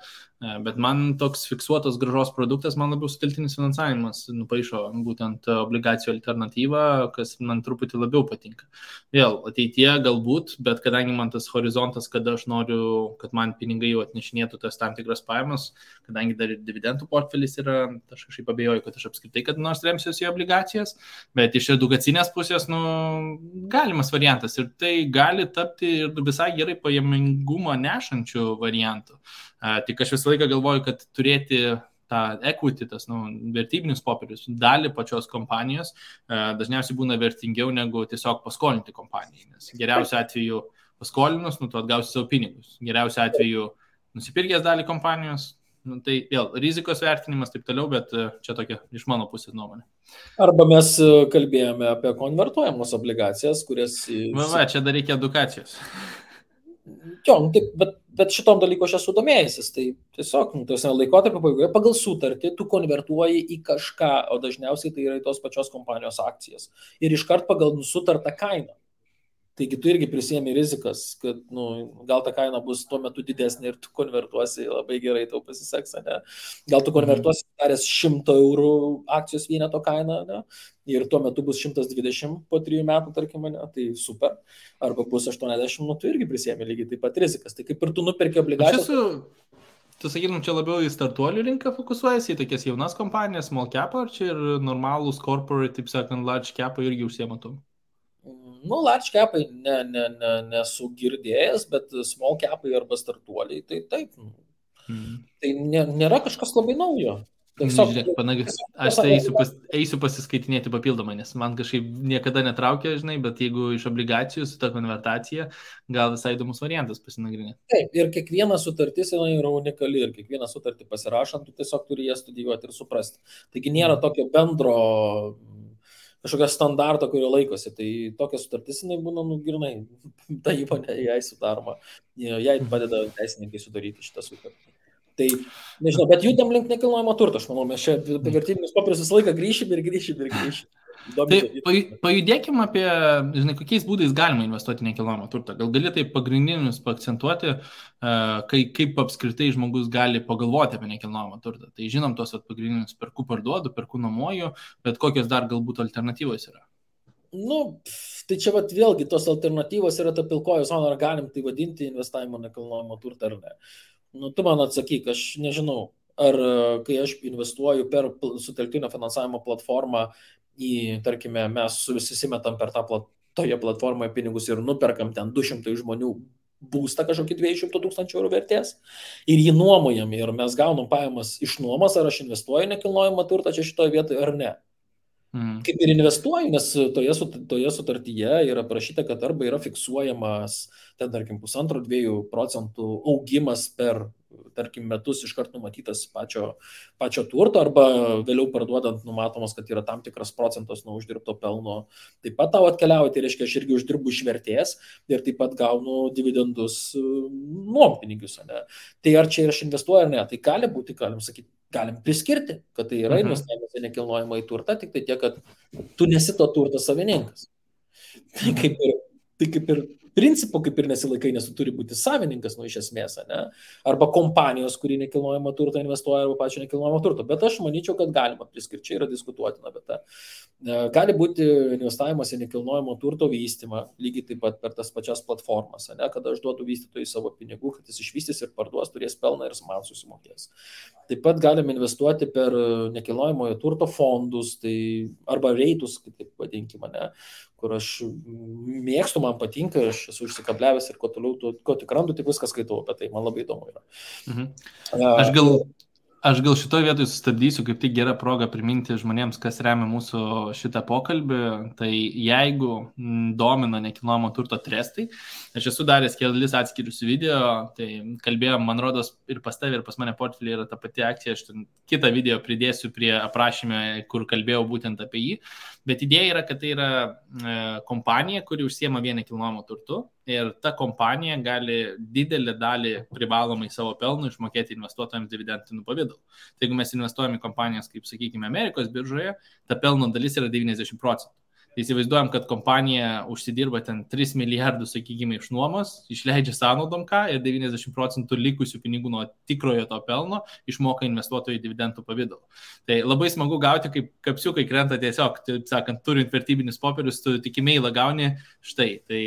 bet man toks fiksuotos grąžos produktas, man labiau sutelktinis finansavimas nupaišo būtent obligacijų alternatyvą, kas man truputį labiau patinka. Vėl, ateityje galbūt, bet kadangi man tas horizontas, kada aš noriu, kad man pinigai jau atnešinėtų tas tam tikras pajamas, kadangi dar ir dividendų portfelis yra, aš kažkaip abejoju, kad aš apskritai kad nors remsiuosi į obligacijas, bet iš edukacinės pusės, galimas variantas ir tai gali tapti ir visai gerai pajamingumą nešančių variantų. Tik aš visą laiką galvoju, kad turėti tą equity, tas vertybinius popierius, dalį pačios kompanijos dažniausiai būna vertingiau negu tiesiog paskolinti kompanijai. Nes geriausiu atveju paskolinus, tu atgausi savo pinigus. Geriausiu atveju nusipirkęs dalį kompanijos, tai vėl rizikos vertinimas taip toliau, bet čia tokia iš mano pusės nuomonė. Arba mes kalbėjome apie konvertuojamos obligacijas, kurias... Čia dar reikia edukacijos. Jo, bet šitom dalyku aš esu domėjęsis, tai tiesiog laikotarpio pabaigoje pagal sutartį tu konvertuoji į kažką, o dažniausiai tai yra į tos pačios kompanijos akcijas. Ir iškart pagal sutartą kainą. Taigi tu irgi prisiemi rizikas, kad gal ta kaina bus tuo metu didesnė ir tu konvertuosi labai gerai, tau pasiseks, ne? Gal tu konvertuosi daręs 100 eurų akcijos vieneto kainą, ne? Ir tuo metu bus 120 po 3 metų, tarkim, ne? Tai super. Arba bus 80, tu irgi prisiemi lygiai taip pat rizikas. Tai kaip ir tu nuperki obligacijas. Tu sakytum, čia labiau į startuolių rinką fokusuojasi, į tokias jaunas kompanijas, small cap, ar čia ir normalūs corporate, taip sakant, large cap irgi užsiematum? Large capai nesu girdėjęs, bet small capai arba startuoliai, tai taip. Tai nėra kažkas labai naujo. Žiūrėk, aš tai eisiu pasiskaitinėti papildomai, nes man kažkaip niekada netraukia, žinai, bet jeigu iš obligacijų su ta konvertacija, gal visai įdomus variantas pasinagrinėti. Taip, ir kiekviena sutartis yra unikali ir kiekvieną sutartį pasirašant, tu tiesiog turi ją studijuoti ir suprasti. Taigi nėra tokio bendro kažkokio standarto, kurio laikosi. Tai tokia sutartis, jinai būna grinai, ta įmonė jai sudaroma, jai padeda teisininkai sudaryti šitą sutartį. Tai, nežinau, bet judam link nekilnojamo turto, aš manau, mes čia apie vertybinius popierius visą laiką grįšim. Tai pajudėkim apie, žinai, kokiais būdais galima investuoti nekilnojamo turtą. Gal gali tai pagrindinius paakcentuoti, kaip apskritai žmogus gali pagalvoti apie nekilnojamo turtą. Tai žinom tos pagrindinius perku parduodu, perku nuomoju, bet kokios dar galbūt alternatyvos yra? Tai čia vėlgi tos alternatyvos yra ta pilkoji zona, ar galim tai vadinti investavimo nekilnojamo turtą ar ne. Tu man atsakyk, aš nežinau, ar kai aš investuoju per sutelktinio finansavimo platformą tarkime, mes susimetam per toje platformoje pinigus ir nuperkam ten 200 žmonių būstą kažkokį 200 000 eurų vertės ir jį nuomojam ir mes gaunam pajamas iš nuomos, ar aš investuoju nekilnojamą turtą čia šitoje vietoje ar ne. Kaip ir investuoju, nes toje sutartyje yra parašyta, kad arba yra fiksuojamas, ten, tarkim, 1,5–2% augimas per, tarkim, metus iškart numatytas pačio turto, arba vėliau parduodant numatomas, kad yra tam tikras procentas nuo uždirbto pelno. Taip pat tau atkeliauja, tai reiškia, aš irgi uždirbu iš vertės ir taip pat gaunu dividendus nuompinigius. Tai ar čia aš investuoju ar ne? Tai gali būti, galim priskirti, kad tai yra investavimas į nekilnojamą į turtą, tik tai tiek, kad tu nesi to turto savininkas. Tai kaip ir principų kaip ir nesilaikai, nes tu turi būti savininkas, iš esmės, ne? Arba kompanijos, kuri nekilnojamo turto investuoja, arba pačio nekilnojamo turto. Bet aš manyčiau, kad galima priskirti, čia yra diskutuotina, bet gali būti investavimas į nekilnojamo turto vystymą, lygiai taip pat per tas pačias platformas, ne? Kada aš duodu vystytojui savo pinigų, kad jis išvystys ir parduos, turės pelną ir man susimokės. Taip pat galime investuoti per nekilnojamojo turto fondus, tai, arba reitus, kaip taip vadinkime, ne? Kur aš mėgstu, man patinka, aš esu užsikabliavęs ir kuo toliau, ko tik randu, tik viską skaitau, bet tai man labai įdomu yra. Aš gal šitoje vietoje sustabdysiu, kaip tik gera proga priminti žmonėms, kas remia mūsų šitą pokalbį. Tai jeigu domina nekilnojamo turto trestai, aš esu daręs kelis atskirius video, tai kalbėjom, man rodos, ir pas tavį, ir pas mane portfelį yra ta pati akcija, aš kitą video pridėsiu prie aprašymę, kur kalbėjau būtent apie jį. Bet idėja yra, kad tai yra kompanija, kuri užsiema vien nekilnojamo turtu ir ta kompanija gali didelį dalį privalomai savo pelnų išmokėti investuotojams dividendiniu pavidalu. Tai jeigu mes investuojame į kompanijas, kaip sakykime, Amerikos biržoje, ta pelno dalis yra 90%. Tai įsivaizduojam, kad kompanija užsidirba ten 3 milijardus, sakykime, iš nuomos, išleidžia sąnaudom ką ir 90% likusių pinigų nuo tikrojo to pelno išmoka investuotojai dividendų pavidalu. Tai labai smagu gauti, kaip kapsiukai krenta tiesiog, taip sakant, turint vertybinius popierius, tu tik emailą gauni štai. Tai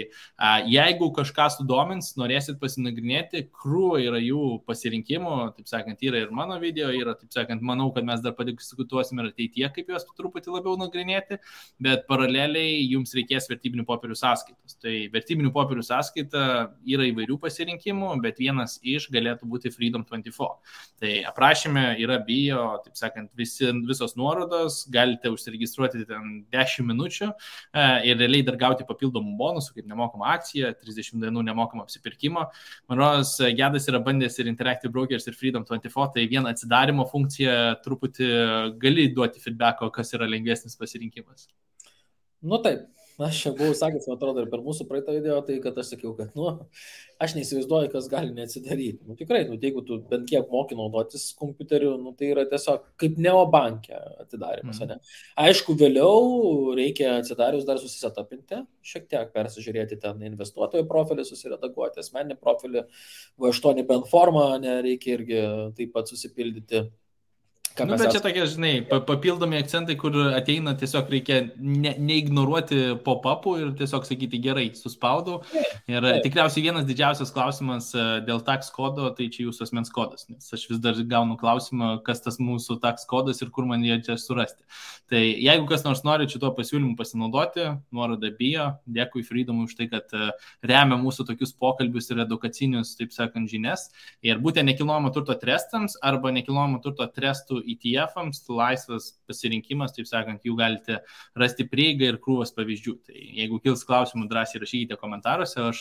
jeigu kažką sudomins, norėsit pasinagrinėti, krūva yra jų pasirinkimų, taip sakant, yra ir mano video, yra, taip sakant, manau, kad mes dar padiskutuosim ir ateityje, kaip juos truputį labiau nagrinėti, bet paraleliai jums reikės vertybinių popierių sąskaitos. Tai vertybinių popierių sąskaita yra įvairių pasirinkimų, bet vienas iš galėtų būti Freedom24. Tai aprašyme yra bio, taip sakant, visos nuorodos, galite užsiregistruoti ten 10 minučių ir realiai dar gauti papildomų bonusų, kaip nemokama akcija, 30 dienų nemokama apsipirkimo. Man rodos, Gedas yra bandęs ir Interactive Brokers, ir Freedom24, tai viena atsidarimo funkcija truputį gali duoti feedbacko, kas yra lengvesnis pasirinkimas. Nu taip, aš čia buvau sakęs, man atrodo, ir per mūsų praeitą video, tai kad aš sakiau, kad, aš neįsivaizduoju, kas gali neatsidaryti. Tikrai, jeigu tu bent kiek moki naudotis kompiuteriu, tai yra tiesiog kaip neobankė atidarimas, ne? Aišku, vėliau reikia atsidarius dar susisetapinti, šiek tiek persižiūrėti ten investuotojo profilį, susiredaguoti asmeninį profilį, V8 bent formą, reikia irgi taip pat susipildyti. Bet čia tokie, žinai, papildomi akcentai, kur ateina, tiesiog reikia neignoruoti pop-upų ir tiesiog sakyti gerai, suspaudau. Ir tikriausiai vienas didžiausias klausimas dėl tax kodo, tai čia jūsų asmens kodas, nes aš vis dar gaunu klausimą, kas tas mūsų tax kodas ir kur man jie čia surasti. Tai jeigu kas nors nori šito pasiūlymu pasinaudoti, nuoroda bio, dėkui Freedomui už tai, kad remia mūsų tokius pokalbius ir edukacinius, taip sakant, žinias. Ir būtent nekilnojamo turto trestams arba nekilnojamo turto trestų ETF-ams, laisvas pasirinkimas, taip sakant, jų galite rasti prieigą ir krūvas pavyzdžių. Tai jeigu kils klausimų, drąsiai rašykite komentaruose. Aš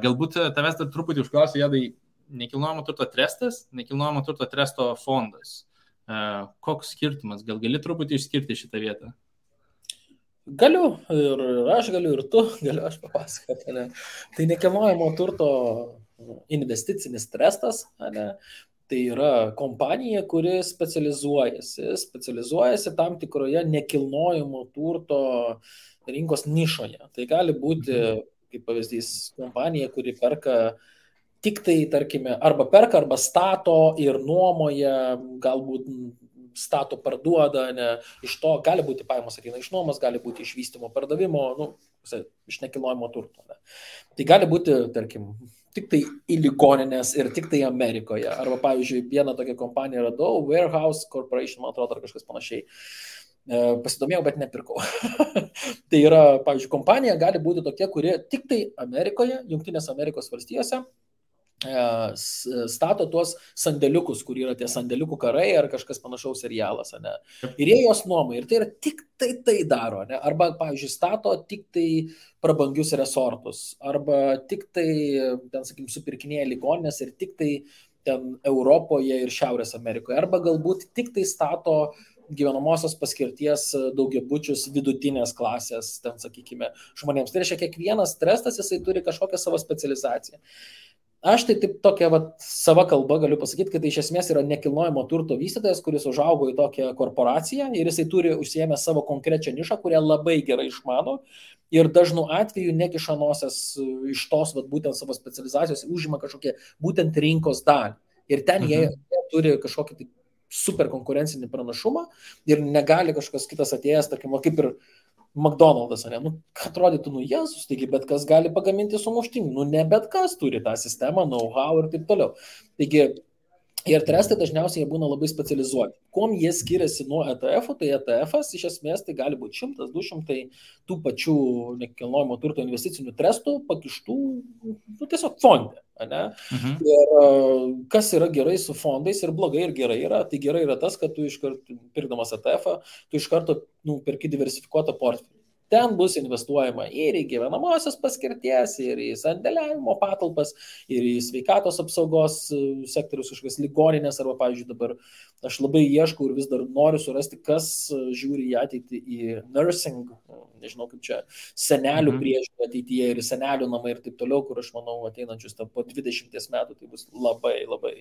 galbūt tavęs dar truputį užklausiu, Jadai, nekilnojamo turto trestas, nekilnojamo turto tresto fondas. Koks skirtumas? Gal gali truputį išskirti šitą vietą? Galiu, ir aš galiu, ir tu galiu, aš papasakoti. Tai nekilnojamo turto investicinis trestas, tai yra kompanija, kuri specializuojasi tam tikroje nekilnojamo turto rinkos nišoje. Tai gali būti, kaip pavyzdys, kompanija, kuri perka tik tai, tarkime, arba perka, arba stato ir nuomoja, galbūt stato parduoda, iš to gali būti pajamos ateina iš nuomos, gali būti iš vystymo pardavimo, iš nekilnojamo turto. Tai gali būti, tarkim, tik tai į ligoninės ir tik tai Amerikoje. Arba, pavyzdžiui, vieną tokią kompaniją radau, Warehouse Corporation, man atrodo, ar kažkas panašiai. Pasidomėjau, bet nepirkau. Tai yra, pavyzdžiui, kompanija gali būti tokia, kuri tik tai Amerikoje, Jungtinės Amerikos valstijose stato tuos sandėliukus, kur yra tie sandėliukų karai ar kažkas panašaus serialas, ir jie jos nuomai, ir tai yra tik tai daro, arba, pavyzdžiui, stato tik tai prabangius resortus, arba tik tai, ten, sakykim, supirkinėja ligoninės ir tik tai ten Europoje ir Šiaurės Amerikoje, arba galbūt tik tai stato gyvenamosios paskirties daugiabučius vidutinės klasės, ten, sakykime, žmonėms. Tai reiškia, kiekvienas trestas, jisai turi kažkokią savo specializaciją. Aš tai taip tokia sava kalba galiu pasakyti, kad tai iš esmės yra nekilnojamo turto vystytojas, kuris užaugo į tokią korporaciją ir jisai turi užsiėmę savo konkrečią nišą, kurią labai gerai išmano ir dažnu atveju nekiša nosies iš tos būtent savo specializacijos, užima kažkokią būtent rinkos dalį. Ir ten jie turi kažkokį tai super konkurencinį pranašumą ir negali kažkas kitas atėjęs, tarkim, kaip ir McDonald's, ne? Nu, atrodytų, Jėzus, taigi bet kas gali pagaminti sumuštinį, ne bet kas turi tą sistemą, know-how ir taip toliau. Taigi, ir trestai dažniausiai jie būna labai specializuoti. Kuom jie skiriasi nuo ETF-ų, tai ETF-as iš esmės tai gali būti 100-200 tų pačių nekilnojamo turto investicinių trestų pakištų tiesiog fonde. Ir kas yra gerai su fondais ir blogai ir gerai yra, tai gerai yra tas, kad tu iškart pirkdamas ETF-ą, tu iš karto perki diversifikuotą portfelį. Ten bus investuojama ir į gyvenamosios paskirties, ir į sandėliavimo patalpas, ir į sveikatos apsaugos sektorius, kažkokias ligoninės, arba, pavyzdžiui, dabar aš labai ieškau ir vis dar noriu surasti, kas žiūri į ateitį į nursing, nežinau kaip čia, senelių priežiūrą ateityje ir senelių namai ir taip toliau, kur aš manau ateinančius po 20 metų tai bus labai, labai,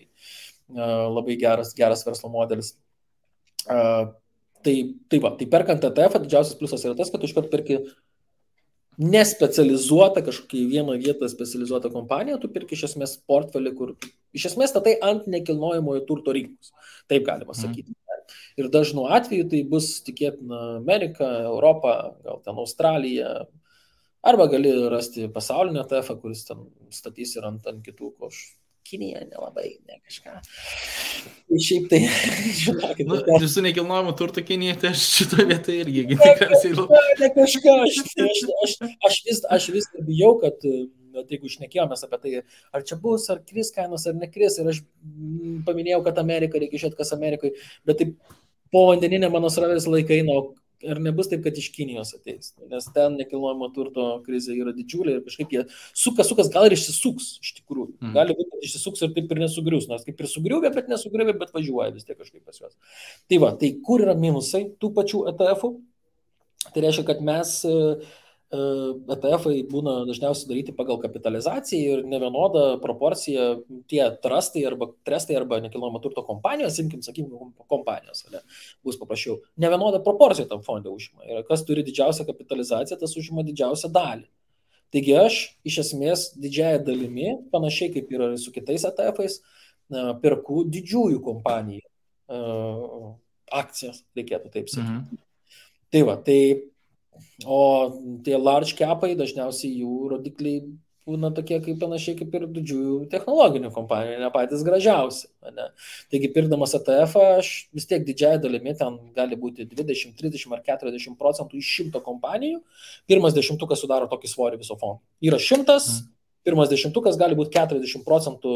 labai geras verslo modelis. Tai perkant ETF, didžiausias pliusas yra tas, kad tu iškart perki nespecializuotą kažkokią vieną vietą specializuotą kompaniją, tu perki iš esmės portfelį, kur iš esmės statai ant nekilnojamojo turto rinkos. Taip galima sakyti. Ir dažnu atveju tai bus tikėtina Amerika, Europa, gal ten Australija, arba gali rasti pasaulinę ETF, kuris ten statys ir ant kitų košų. Kinija nelabai, ne kažką. Šiaip tai, žinokit. Visų nekilnojamų turtų Kinija, tai aš šitoje vietoje irgi tikriausiai. Ne kažką, aš vis bijau, kad jeigu šnekėjomės apie tai, ar čia bus, ar kris kainos, ar nekris, ir aš paminėjau, kad Amerika, reikia žiūrėti, kas Amerikai, bet taip po vandeninė mano srovės laikai, ar nebus taip, kad iš Kinijos ateis, nes ten nekilnojamo turto krizė yra didžiulė ir kažkaip jie sukas, gal ir išsisuks iš tikrųjų. Gali būti, kad išsisuks ir taip ir nesugrius, nors kaip ir sugriuvė, bet nesugriuvė, bet važiuoja vis tiek kažkaip pas juos. Tai kur yra minusai tų pačių ETF-ų? Tai reiškia, kad mes ETF-ai būna dažniausiai daryti pagal kapitalizaciją ir nevienoda proporcija tie trestai arba nekilnojamo turto kompanijos, sakykime, kompanijos, bus paprasčiau. Nevienoda proporcija tam fonde užima. Ir kas turi didžiausią kapitalizaciją, tas užima didžiausią dalį. Taigi aš iš esmės didžiąją dalimi, panašiai kaip yra su kitais ETF-ais, perku didžiųjų kompanijų akcijas, reikėtų taip sakyti. Tai o tie large capai dažniausiai jų rodikliai būna tokie kaip panašiai kaip ir didžiųjų technologinių kompanijų, ne patys gražiausi. Taigi pirkdamas ETF-ą aš vis tiek didžiąją dalimi ten gali būti 20, 30 ar 40% iš 100 kompanijų. Pirmas dešimtukas sudaro tokį svorį viso fondo. Yra 100, pirmas dešimtukas gali būti 40%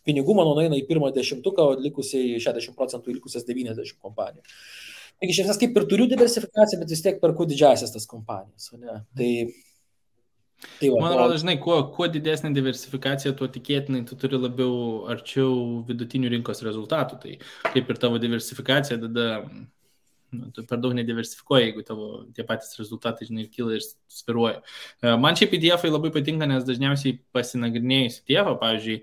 pinigų, mano nueina į pirmą dešimtuką, o likusiai 60% į likusias 90 kompanijų. Taigi iš esmės kaip ir turiu diversifikaciją, bet vis tiek perku didžiasias tas kompanijas. Man atrodo, žinai, kuo didesnė diversifikacija, tuo tikėtinai tu turi labiau arčiau vidutinių rinkos rezultatų. Tai kaip ir tavo diversifikacija, tada tu per daug nediversifikuoji, jeigu tavo tie patys rezultatai, žinai, kyla ir sviruoja. Man šiaip ETF-ai labai patinka, nes dažniausiai pasinagrinėjus ETF-ą, pavyzdžiui,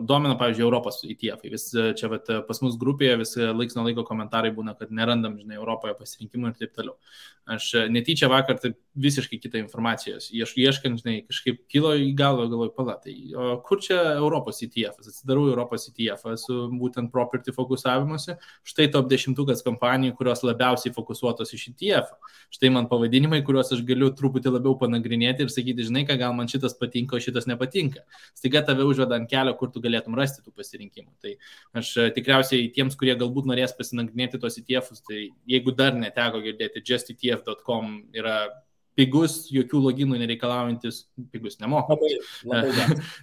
domina, pavyzdžiui, Europos ETF-ai. Vis čia pas mus grupėje vis laiks nuo laiko komentarai būna, kad nerandam, žinai, Europoje pasirinkimų ir taip toliau. Aš netyčia vakar taip visiškai kitą informacijos. Ieškant, žinai, kažkaip kilo į galvą, galvoju, palatai, o kur čia Europos ETF-as? Atsidarau Europos ETF-ą su būtent property fokusavimuose. Štai top 10 kompanijų, kurios labiausiai fokusuotos iš ETF. Štai man pavadinimai, kuriuos aš galiu truputį labiau panagrinėti ir sakyti, žinai, ką gal man šitas patinka, o šitas nepatinka. Staiga tave užveda ant kelio, kur tu galėtum rasti tų pasirinkimų. Tai aš tikriausiai tiems, kurie galbūt norės pasinagrinėti tos ETF-us, tai jeigu dar neteko girdėti, justetf.com yra pigus, jokių loginų nereikalaujantis, pigus nemokamas.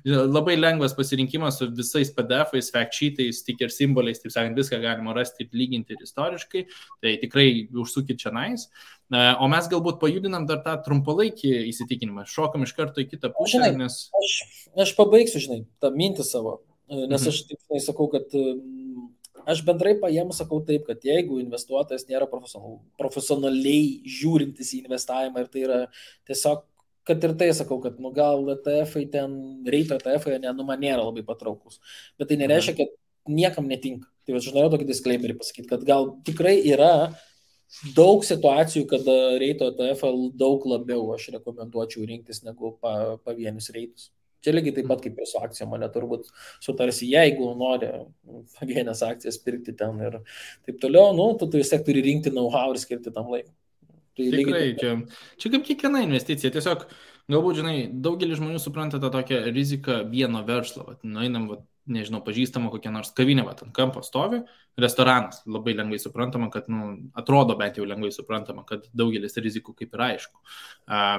Labai lengvas pasirinkimas su visais PDF-ais, fact sheetais, sticker simboliais, taip sakant, viską galima rasti ir lyginti ir istoriškai, tai tikrai užsukit čia nais. O mes galbūt pajudinam dar tą trumpalaikį įsitikinimą, šokam iš karto į kitą pusę, nes... Aš pabaigsiu, žinai, tą mintį savo, nes aš taip sakau, kad aš bendrai paėmus sakau taip, kad jeigu investuotojas nėra profesionaliai žiūrintis į investavimą ir tai yra tiesiog, kad ir tai sakau, kad gal ETF-ai ten, reito ETF-ai, man nėra labai patraukus, bet tai nereiškia, kad niekam netinka. Tai aš norėjau tokį disclaimerį pasakyti, kad gal tikrai yra daug situacijų, kada reito ETF daug labiau aš rekomenduočiau rinktis negu pavienius reitus. Čia lygiai taip pat kaip ir su akcijom, mane turbūt sutarsi, jeigu nori pavienės akcijas pirkti ten ir taip toliau, nu, tu vis tiek turi rinkti know-how ir skirti tam laiką. Tai Tikrai, čia kaip kiekviena investicija, tiesiog galbūt, žinai, daugelis žmonių supranta tą tokią riziką vieno verslo, nueinam, nežinau, pažįstama kokia nors kavinė, ant kampo stovi, restoranas, labai lengvai suprantama, kad, atrodo bent jau lengvai suprantama, kad daugelis rizikų kaip ir aišku,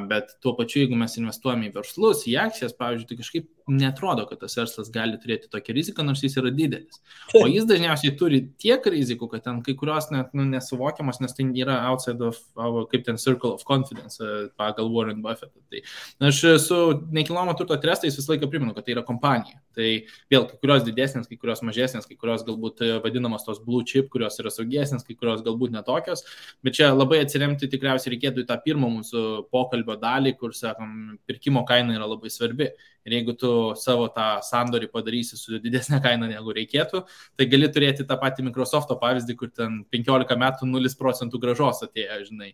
bet tuo pačiu, jeigu mes investuojame į verslus, į akcijas, pavyzdžiui, tai kažkaip netrodo, kad tas verslas gali turėti tokią riziką, nors jis yra didelis. O jis dažniausiai turi tiek rizikų, kad ten kai kurios net nesuvokiamas, nes tai yra outside of our, kaip ten circle of confidence pagal Warren Buffett. Tai aš su nekilnojamo turto trestais visą laiką primenu, kad tai yra kompanija. Tai vėl kai kurios didesnės, kai kurios mažesnės, kai kurios galbūt vadinamos tos blue chip, kurios yra saugesnės, kai kurios galbūt netokios. Bet čia labai atsiremti tikriausiai reikėtų į tą pirmą mūsų pokalbio dalį, kur, sakom, pirkimo kaina yra labai svarbi. Ir jeigu tu savo tą sandorį padarysi su didesnė kaina negu reikėtų, tai gali turėti tą patį Microsoft'o pavyzdį, kur ten 15 metų 0% grąžos atėjo, žinai,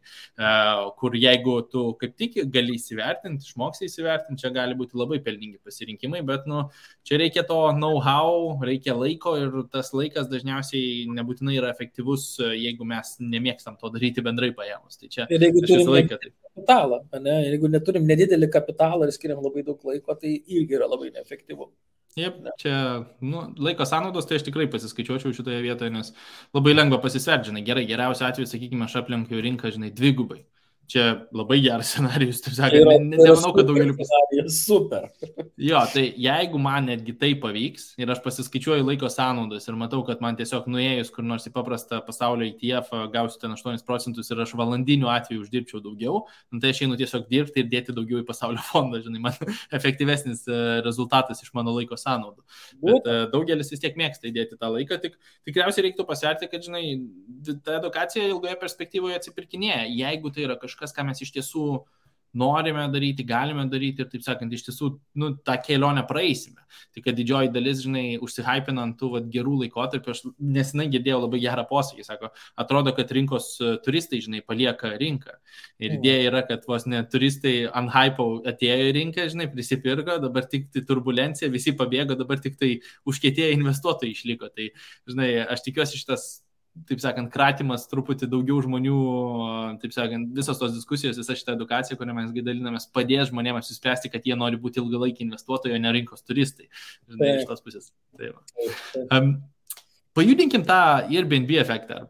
kur jeigu tu kaip tik gali įsivertinti, išmoksi įsivertinti, čia gali būti labai pelningi pasirinkimai, bet čia reikia to know-how, reikia laiko ir tas laikas dažniausiai nebūtinai yra efektyvus, jeigu mes nemėgstam to daryti bendrai paėmus. Tai čia aš visą laiką taip. Kapitalą, ne? Jeigu neturim nedidelį kapitalą ir skiriam labai daug laiko, tai irgi yra labai neefektyvu. Jep, čia laiko sąnaudos, tai aš tikrai pasiskaičiuočiau šitoje vietoje, nes labai lengva pasisverti, žinai, geriausiu atveju, sakykime, aš aplenkiu rinką, žinai, dvigubai. Čia labai geras scenarijus, taip sakant, nemanau, kad daugeliu super. Jo, tai jeigu man netgi tai pavyks ir aš pasiskaičiuoju laiko sąnaudas ir matau, kad man tiesiog nuėjus kur nors į paprastą pasaulio ETF gausiu ten 8% ir aš valandiniu atveju uždirbčiau daugiau, tai aš einu tiesiog dirbti ir dėti daugiau į pasaulio fondą, žinai, man efektyvesnis rezultatas iš mano laiko sąnaudų. Bet daugelis vis tiek mėgsta įdėti tą laiką, tikriausiai reiktų pasverti, kad, žinai, ta edukacija ilgoje perspektyvoje atsipirkinėja, jeigu tai yra kažkas, ką mes iš tiesų norime daryti, galime daryti ir, taip sakant, iš tiesų, tą kelionę praeisime. Tai kad didžioji dalis, žinai, užsihypinant tų gerų laikotarpių, aš nesenai girdėjau labai gerą posakį, sako, atrodo, kad rinkos turistai, žinai, palieka rinką. Ir idėja yra, kad vos ne turistai ant hypo atėjo į rinką, žinai, prisipirko, dabar tik tai turbulencija, visi pabėgo, dabar tik tai užkietėję investuotojai išliko. Tai, žinai, aš tikiuosi šitas, taip sakant, kratimas truputį daugiau žmonių, taip sakant, visos tos diskusijos, visa šita edukacija, kurią mes dalinamės, padės žmonėms apsispręsti, kad jie nori būti ilgalaikiai investuotojai, o ne rinkos turistai. Žinai, iš tos pusės. Pajudinkim tą Airbnb efektą,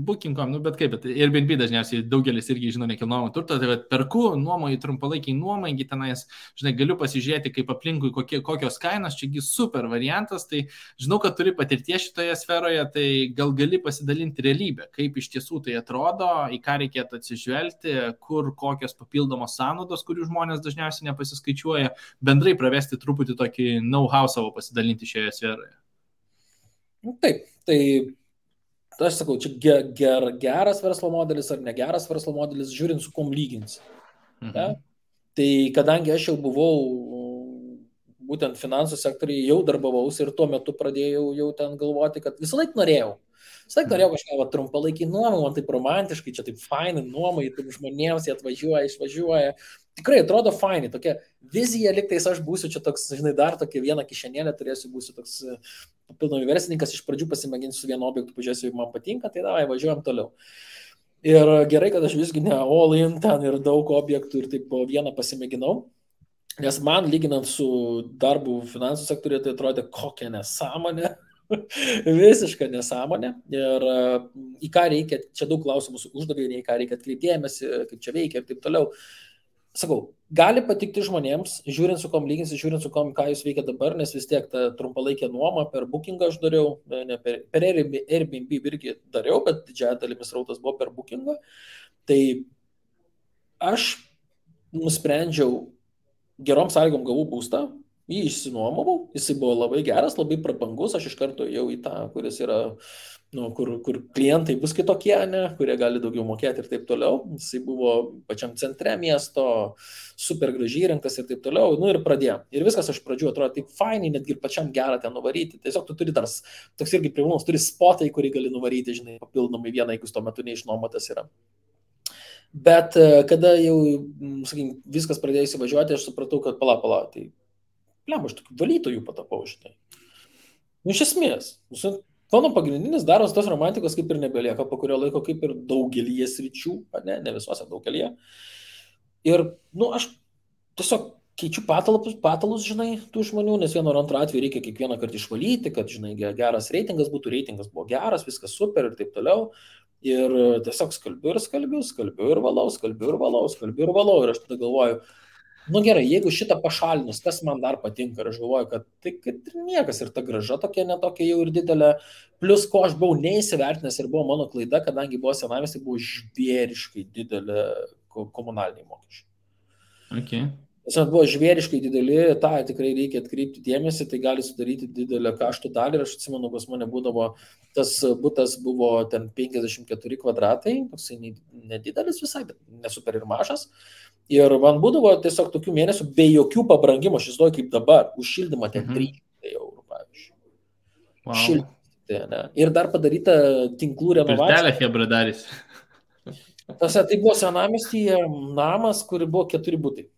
Booking.com, bet kaip, bet Airbnb dažniausiai daugelis irgi žino nekilnojamo turto, tai perku, nuomoju trumpalaikiai nuomai, tenais, žinai, galiu pasižiūrėti, kaip aplinkui kokios kainos, čiagi super variantas, tai žinau, kad turi patirties šitoje sferoje, tai gal gali pasidalinti realybę, kaip iš tiesų tai atrodo, į ką reikėtų atsižvelgti, kur kokios papildomos sąnaudos, kurių žmonės dažniausiai nepasiskaičiuoja, bendrai pravesti truputį tokį know-how savo pasidalinti šioje sferoje. Taip, tai aš sakau, čia geras verslo modelis ar negeras verslo modelis, žiūrint su kom lyginsi. Ja? Tai kadangi aš jau buvau būtent finansų sektoriai, jau darbavausi ir tuo metu pradėjau jau ten galvoti, kad visą laiką norėjau kažką trumpalaikį nuomą, man taip romantiškai, čia taip fainai nuomai, taip žmonėms jie atvažiuoja, išvažiuoja. Tikrai atrodo fainai, tokia vizija, liktais aš būsiu čia toks, žinai, dar tokia vieną kišenėlę turėsiu, būsiu toks papildomai verslininkas, iš pradžių pasimėginsiu su vienu objektu, pažiūrėsiu, jeigu man patinka, tai davai, važiuojam toliau. Ir gerai, kad aš visgi ne all in ten ir daug objektų ir taip po vieną pasimėginau, nes man lyginant su darbu finansų sektoriuje, tai atrodė kokia nesąmonė. Visiška nesąmonė ir į ką reikia, čia daug klausimų uždavė, į ką reikia atkreipdėmėsi, kaip čia veikia ir taip toliau. Sakau, gali patikti žmonėms, žiūrint su kom lyginsi, žiūrint su kom, ką jūs veikia dabar, nes vis tiek tą trumpalaikę nuomą per Bookingą aš dariau, ne per Airbnb irgi dariau, bet didžiąją dalimis rautas buvo per Bookingą. Tai aš nusprendžiau, gerom sąlygom gavau būstą, Jį išsinuomavau, jisai buvo labai geras, labai prabangus, aš iš karto jau į tą, kuris yra, nu, kur klientai bus kitokie, ne, kurie gali daugiau mokėti ir taip toliau. Jisai buvo pačiam centre miesto, super gražiai įrengtas ir taip toliau. Nu ir pradėjom. Ir viskas iš pradžių atrodo taip fainai, netgi ir pačiam gerą ten nuvaryti. Tiesiog tu turi dar, toks irgi privalumas, turi spotai, kurį gali nuvaryti, žinai, papildomai vieną, jeigu tuo metu neišnuomotas yra. Bet kada jau, sakykim, viskas pradėjo įsivažiuoti, aš supratau, kad pala, tai aš tokių valytojų patapau, žinai. Nu, iš esmės, mano pagrindinis darbas tos romantikos kaip ir nebelieka, po kurio laiko kaip ir daugelį sričių, ne visuose daugelį. Ir, nu, aš tiesiog keičiu patalus, žinai, tų žmonių, nes vieno ar antro atveju reikia kiekvieną kartą išvalyti, kad, žinai, geras reitingas buvo geras, viskas super ir taip toliau. Ir tiesiog skalbiu ir valau. Ir aš tada galvoju, nu gerai, jeigu šitą pašalinus, kas man dar patinka, ir aš galvoju, kad tai kad niekas ir ta graža tokia netokia jau ir didelė, plus ko aš buvau neįsivertinęs ir buvo mano klaida, kadangi buvo senamiestis, tai buvo žvėriškai didelė komunaliniai mokesčiai. Okay. Tiesiog buvo žvėriškai dideli, tą tikrai reikia atkreipti dėmesį, tai gali sudaryti didelę kaštų dalį ir aš atsimenu, pas mane būdavo, tas butas buvo ten 54 kvadratai, toksai nedidelis visai, bet nesuper ir mažas. Ir man būdavo tiesiog tokių mėnesių be jokių pabrangimų, aš įsivaizduoju kaip dabar, už šildymą ten 300 eurų, pavyzdžiui. Wow. Šildymą, ne? Ir dar padaryta tinklų renovacija. Pirtelė hebra darys. Tai buvo senamiestyje namas, kur buvo 4 butai.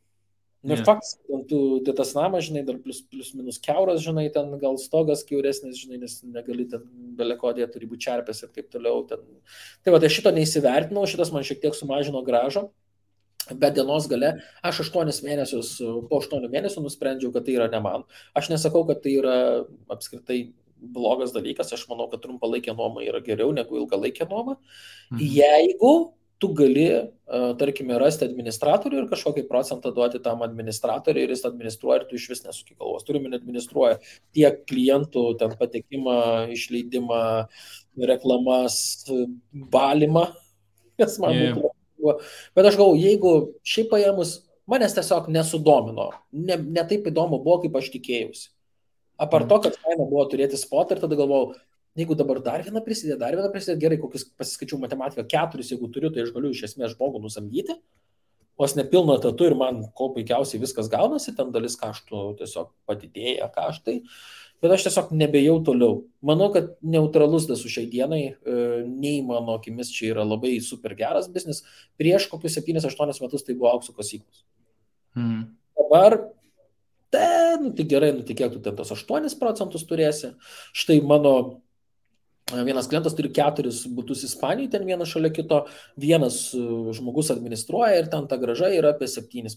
Ir faktas, tu tas namas, žinai, dar plus minus kiauras, žinai, ten gal stogas kiauresnis, žinai, nes negali ten belekodėje, turi būti čerpės ir taip toliau. Ten. Tai va, tai šito neįsivertinau, šitas man šiek tiek sumažino gražą. Bet dienos gale aš 8 mėnesius, po 8 mėnesių nusprendžiau, kad tai yra ne man. Aš nesakau, kad tai yra apskritai blogas dalykas, aš manau, kad trumpalaikė nuoma yra geriau negu ilgalaikė nuoma. Jeigu tu gali, tarkime, rasti administratorių ir kažkokį procentą duoti tam administratoriui ir jis administruoja ir tu iš vis nesuki galvos. Turime administruoja tiek klientų, ten patekimą, išleidimą, reklamas, valymą, kas man būtų. Bet aš galvoju, jeigu šiaip paėmus, manęs tiesiog nesudomino, ne taip įdomu buvo, kaip aš tikėjausi. Apart to, kad kaina buvo turėti spotą ir tada galvojau, jeigu dabar dar vieną prisidėti, gerai, kokius pasiskaičiau matematiką, 4, jeigu turiu, tai aš galiu iš esmės žmogų nusamdyti, vos nepilno etatu ir man ko puikiausiai viskas gaunasi, ten dalis kaštų tiesiog padidėja kaštai. Bet aš tiesiog nebejau toliau. Manau, kad neutralus tas su šiai dienai, nei mano akimis čia yra labai super geras biznis. Prieš kokius 7-8 metus tai buvo aukso kasyklos. Dabar, tai gerai, kiek tu ten tos 8% turėsi. Štai mano vienas klientas turi 4 butus Ispanijoje, ten vienas šalia kito, vienas žmogus administruoja ir ten ta graža yra apie 7%,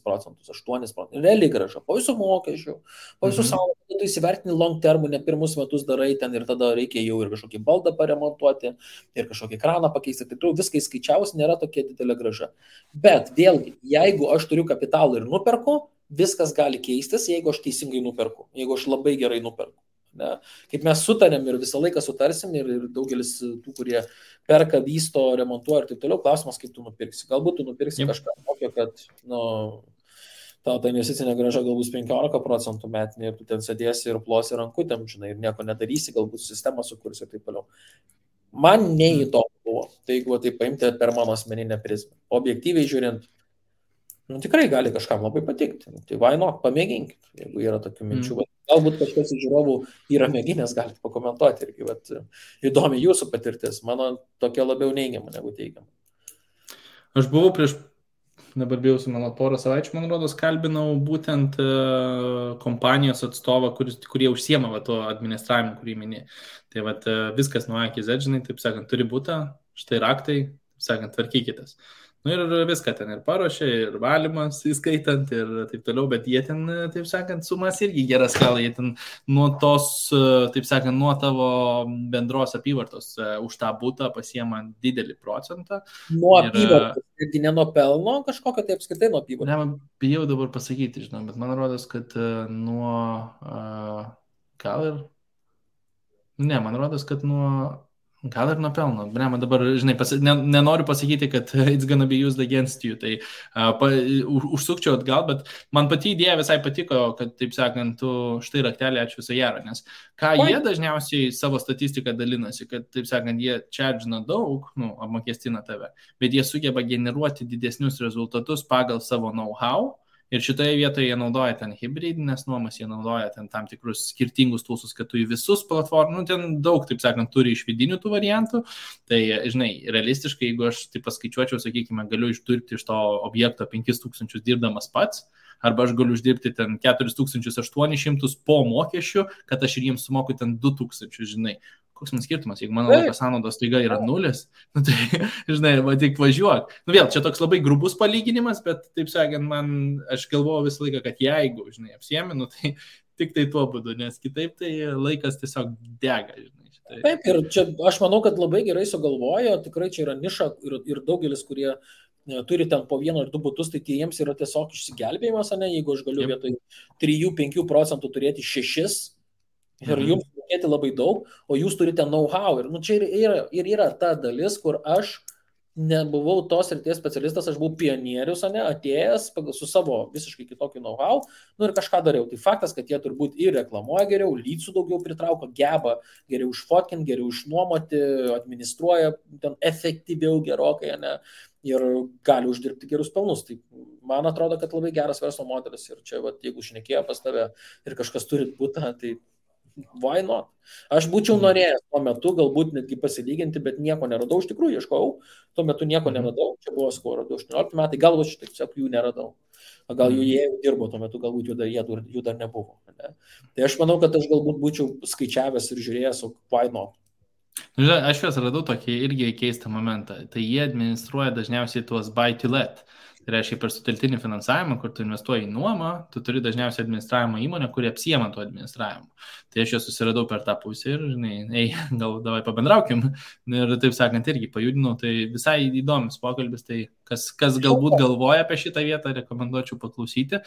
8%. Realiai graža, po visų mokesčių, po visų savo, tu įsivertini long termų, ne pirmus metus darai ten ir tada reikia jau ir kažkokį baldą paremontuoti, ir kažkokį kraną pakeisti, tai viską įskaičiaus, nėra tokia didelė graža. Bet vėlgi, jeigu aš turiu kapitalą ir nuperku, viskas gali keistis, jeigu aš teisingai nuperku, jeigu aš labai gerai nuperku. Ne? Kaip mes sutarėm ir visą laiką sutarsim ir daugelis tų, kurie perka, vysto, remontuoja ir taip toliau, klausimas, kaip tu nupirksi. Galbūt tu nupirksi kažką tokio, kad tau ta investicinė graža galbūt 15% metinė ir tu ten sėdėsi ir plosi rankutėm, žinai, ir nieko nedarysi, galbūt sistemą sukursi ir taip toliau. Man neįdomu buvo, tai jeigu tai paimti per mano asmeninę prizmę. Objektyviai žiūrint, tikrai gali kažkam labai patikti. Tai vaino, pamėginkit, jeigu yra tokių minčių. Galbūt kažkas iš žiūrovų yra mėginęs, galite pakomentuoti irgi, bet įdomi jūsų patirtis, mano tokia labiau neigiama negu teigiama. Aš buvau dabar bijausi, mano porą savaičių, man rodos, kalbinau būtent kompanijos atstovą, kurie užsiema tuo administravimu, kurį minė. Tai viskas nuo A iki Z, žinai, taip sakant, turi būti, štai raktai, taip sakant, tvarkykitės. Nu ir viską ten ir paruošė, ir valymas įskaitant ir taip toliau, bet jie ten, taip sakant, sumas irgi geras skala, jie ten nuo tos, taip sakant, nuo tavo bendros apyvartos už tą butą pasiema didelį procentą. Nuo apyvartos, irgi ne nuo pelno kažkokio, tai apskritai nuo apyvartos. Ne, bijau dabar pasakyti, žinau, bet man rodos, kad nuo, gal ir, ne, man rodos, kad nuo Gal ir nupelno. Brema, dabar, žinai, nenoriu pasakyti, kad it's gonna be used against you, tai užsukčiau atgal, bet man pati idėja visai patiko, kad, taip sakant, tu štai raktelį, ačiū viso gero, nes ką jie dažniausiai savo statistiką dalinasi, kad, taip sakant, jie charge'ina daug, apmokestina tave, bet jie sugeba generuoti didesnius rezultatus pagal savo know-how. Ir šitoje vietoje jie naudoja ten hybridinės nuomas, jie naudoja ten tam tikrus skirtingus tūsus, kad tu į visus platformų, ten daug, taip sakant, turi iš vidinių tų variantų. Tai, žinai, realistiškai, jeigu aš taip paskaičiuočiau, sakykime, galiu išdirbti iš to objekto 5000 dirbdamas pats, arba aš galiu uždirbti ten 4800 po mokesčių, kad aš ir jiems sumoku ten 2000, žinai. Koks man skirtumas, jeigu mano laiko sąnaudos taiga yra 0, tai, žinai, va tik važiuok. Vėl, čia toks labai grubus palyginimas, bet, taip sakant, aš galvoju visą laiką, kad jeigu, žinai, apsieminu, tai tik tai tuo būdu, nes kitaip tai laikas tiesiog dega, žinai. Taip, ir čia aš manau, kad labai gerai sugalvojo, tikrai čia yra niša ir daugelis, kurie turi ten po 1 ar 2 butus, tai jiems yra tiesiog išsigelbėjimas, ne, jeigu aš galiu vietoj 3-5 procentų turėti 6, ir jums mokėti labai daug, o jūs turite know-how. Ir čia yra ta dalis, kur aš nebuvau tos srities specialistas, aš buvau pionierius, atėjęs su savo visiškai kitokiu know-how, ir kažką dariau. Tai faktas, kad jie turbūt ir reklamuoja geriau, lydsų daugiau pritrauko, geba geriau išfotkinti, geriau išnuomoti, administruoja ten efektyviau gerokai, ir gali uždirbti gerus pelnus. Tai man atrodo, kad labai geras verslo modelis. Ir čia, jeigu šnekėjo pas tave ir kažkas turi butą, tai why not? Aš būčiau norėjęs tuo metu galbūt netgi pasilyginti, bet nieko neradau. Iš tikrųjų ieškojau, tuo metu nieko neradau. Čia buvo skoro 18 metai, galbūt šitai tiesiog jų neradau. Gal jie jau dirbo tuo metu, galbūt jų dar nebuvo. Ne? Tai aš manau, kad aš galbūt būčiau skaičiavęs ir žiūrėjęs, why not? Aš juos radau tokį irgi keistą momentą. Tai jie administruoja dažniausiai tuos buy to let. Tai reiškia, per sutelktinį finansavimą, kur tu investuoji į nuomą, tu turi dažniausiai administravimo įmonę, kuri apsiema to administravimu. Tai aš juos susiradau per tą pusę ir, žinai, gal davai pabendraukim. Ir taip sakant, irgi pajudinau. Tai visai įdomus pokalbis, tai kas galbūt galvoja apie šitą vietą, rekomenduočiau paklausyti.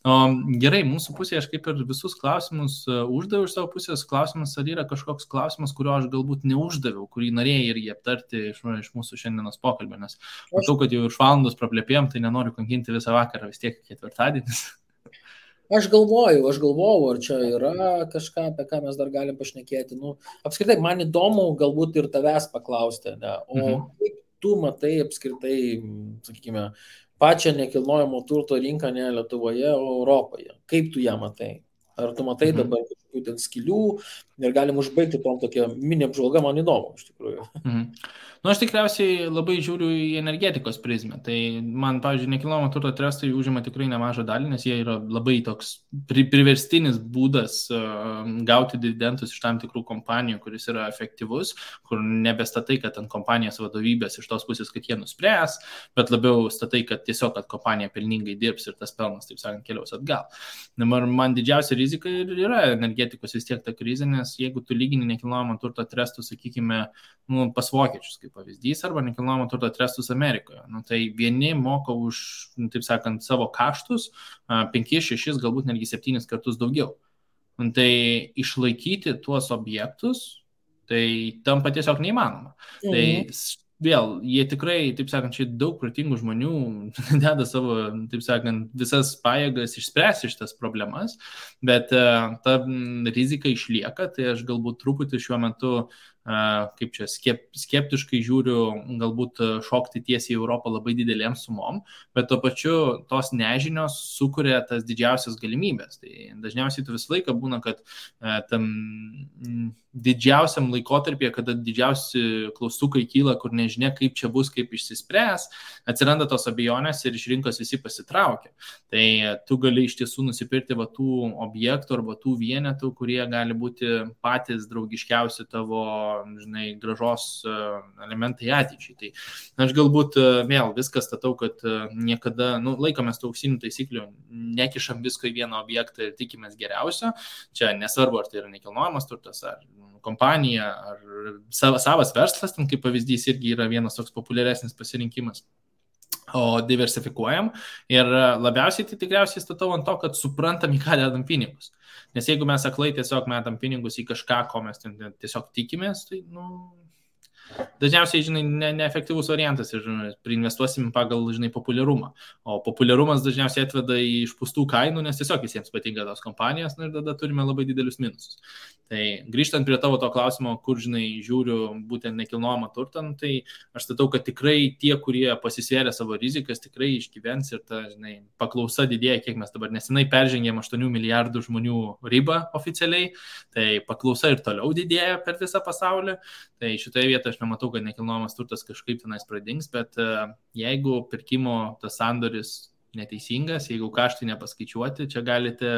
O, gerai, mūsų pusėje aš kaip ir visus klausimus uždaviau iš savo pusės. Klausimas, ar yra kažkoks klausimas, kurio aš galbūt neuždaviau, kurį norėjai irgi aptarti iš mūsų šiandienos pokalbio, nes matau, kad jau iš valandos praplėpėjom, tai nenoriu kankinti visą vakarą, vis tiek ketvirtadienis. Aš galvojau, ar čia yra kažką, apie ką mes dar galim pašnekėti. Apskritai, man įdomu galbūt ir tavęs paklausti, o kaip tu matai apskritai, sakykime, pačią nekilnojamo turto rinką ne Lietuvoje, o Europoje? Kaip tu ją matai? Ar tu matai dabar kažkokių ten skylių ir galim užbaigti tom tokia mini apžvalga, man įdomu, iš tikrųjų. Aš tikriausiai labai žiūriu į energetikos prizmę. Tai man, pavyzdžiui, nekilnojamo turto trustai užima tikrai nemažą dalį, nes jie yra labai toks priverstinis būdas gauti dividendus iš tam tikrų kompanijų, kuris yra efektyvus, kur nebestatai, kad ant kompanijos vadovybės iš tos pusės, kad jie nuspręs, bet labiau statai, kad tiesiog, kad kompanija pelningai dirbs ir tas pelnas, taip sakant, keliaus atgal. Man didžiausia rizika yra energetikos vis tiek ta krizė, nes jeigu tu lygini nekilnojamo turto trustus, sakykime, pas vokiečius, kaip pavyzdys, arba nekilnojamo turto trustus Amerikoje. Tai vieni moka už, taip sakant, savo kaštus 5, 6, galbūt netgi 7 kartus daugiau. Tai išlaikyti tuos objektus, tai tampa tiesiog neįmanoma. Tai vėl, jie tikrai, taip sakant, čia daug protingų žmonių deda savo, taip sakant, visas pajėgas išspręsti šitas problemas, bet ta rizika išlieka, tai aš galbūt truputį šiuo metu kaip čia, skeptiškai žiūriu, galbūt šokti tiesiai į Europą labai didelėm sumom, bet tuo pačiu tos nežinios sukuria tas didžiausias galimybės. Tai dažniausiai tu visą laiką būna, kad tam didžiausiam laikotarpyje, kada didžiausi klaustukai kyla, kur nežinia, kaip čia bus, kaip išsispręs, atsiranda tos abejonės ir iš rinkos visi pasitraukia. Tai tu gali iš tiesų nusipirkti va tų objektų arba tų vienetų, kurie gali būti patys draugiškiausi tavo, žinai, gražos elementai ateičiai. Tai aš galbūt vėl viską statau, kad niekada, laikomės tų auksinių taisyklių, nekišam visko į vieną objektą ir tikimės geriausio. Čia nesvarbu, ar tai yra nekilnojamas turtas, ar kompanija, ar savas verslas, ten kaip pavyzdys irgi yra vienas toks populiaresnis pasirinkimas. O diversifikuojam ir labiausiai tai tikriausiai statau ant to, kad suprantam, į ką dedam pinigus. Nes jeigu mes aklai tiesiog metam pinigus į kažką, ko mes tiesiog tikimės, tai, dažniausiai, žinai, neefektyvus variantas ir priinvestuosim pagal, žinai, populiarumą. O populiarumas dažniausiai atveda į išpūstų kainų, nes tiesiog visiems patinka tos kompanijos, ir tada turime labai didelius minusus. Tai grįžtant prie tavo to klausimo, kur, žinai, žiūriu būtent nekilnojamą turtą, tai aš statau, kad tikrai tie, kurie pasisvėrė savo rizikas, tikrai išgyvens ir ta, žinai, paklausa didėja, kiek mes dabar nesenai peržengėm 8 milijardų žmonių ribą oficialiai, tai paklausa ir toliau didėja per visą pasaulį. Tai šitoje vietoje aš nematau, kad nekilnojamas turtas kažkaip tenais pradings, bet jeigu pirkimo tas sandoris neteisingas, jeigu kaštai nepaskaičiuoti, čia galite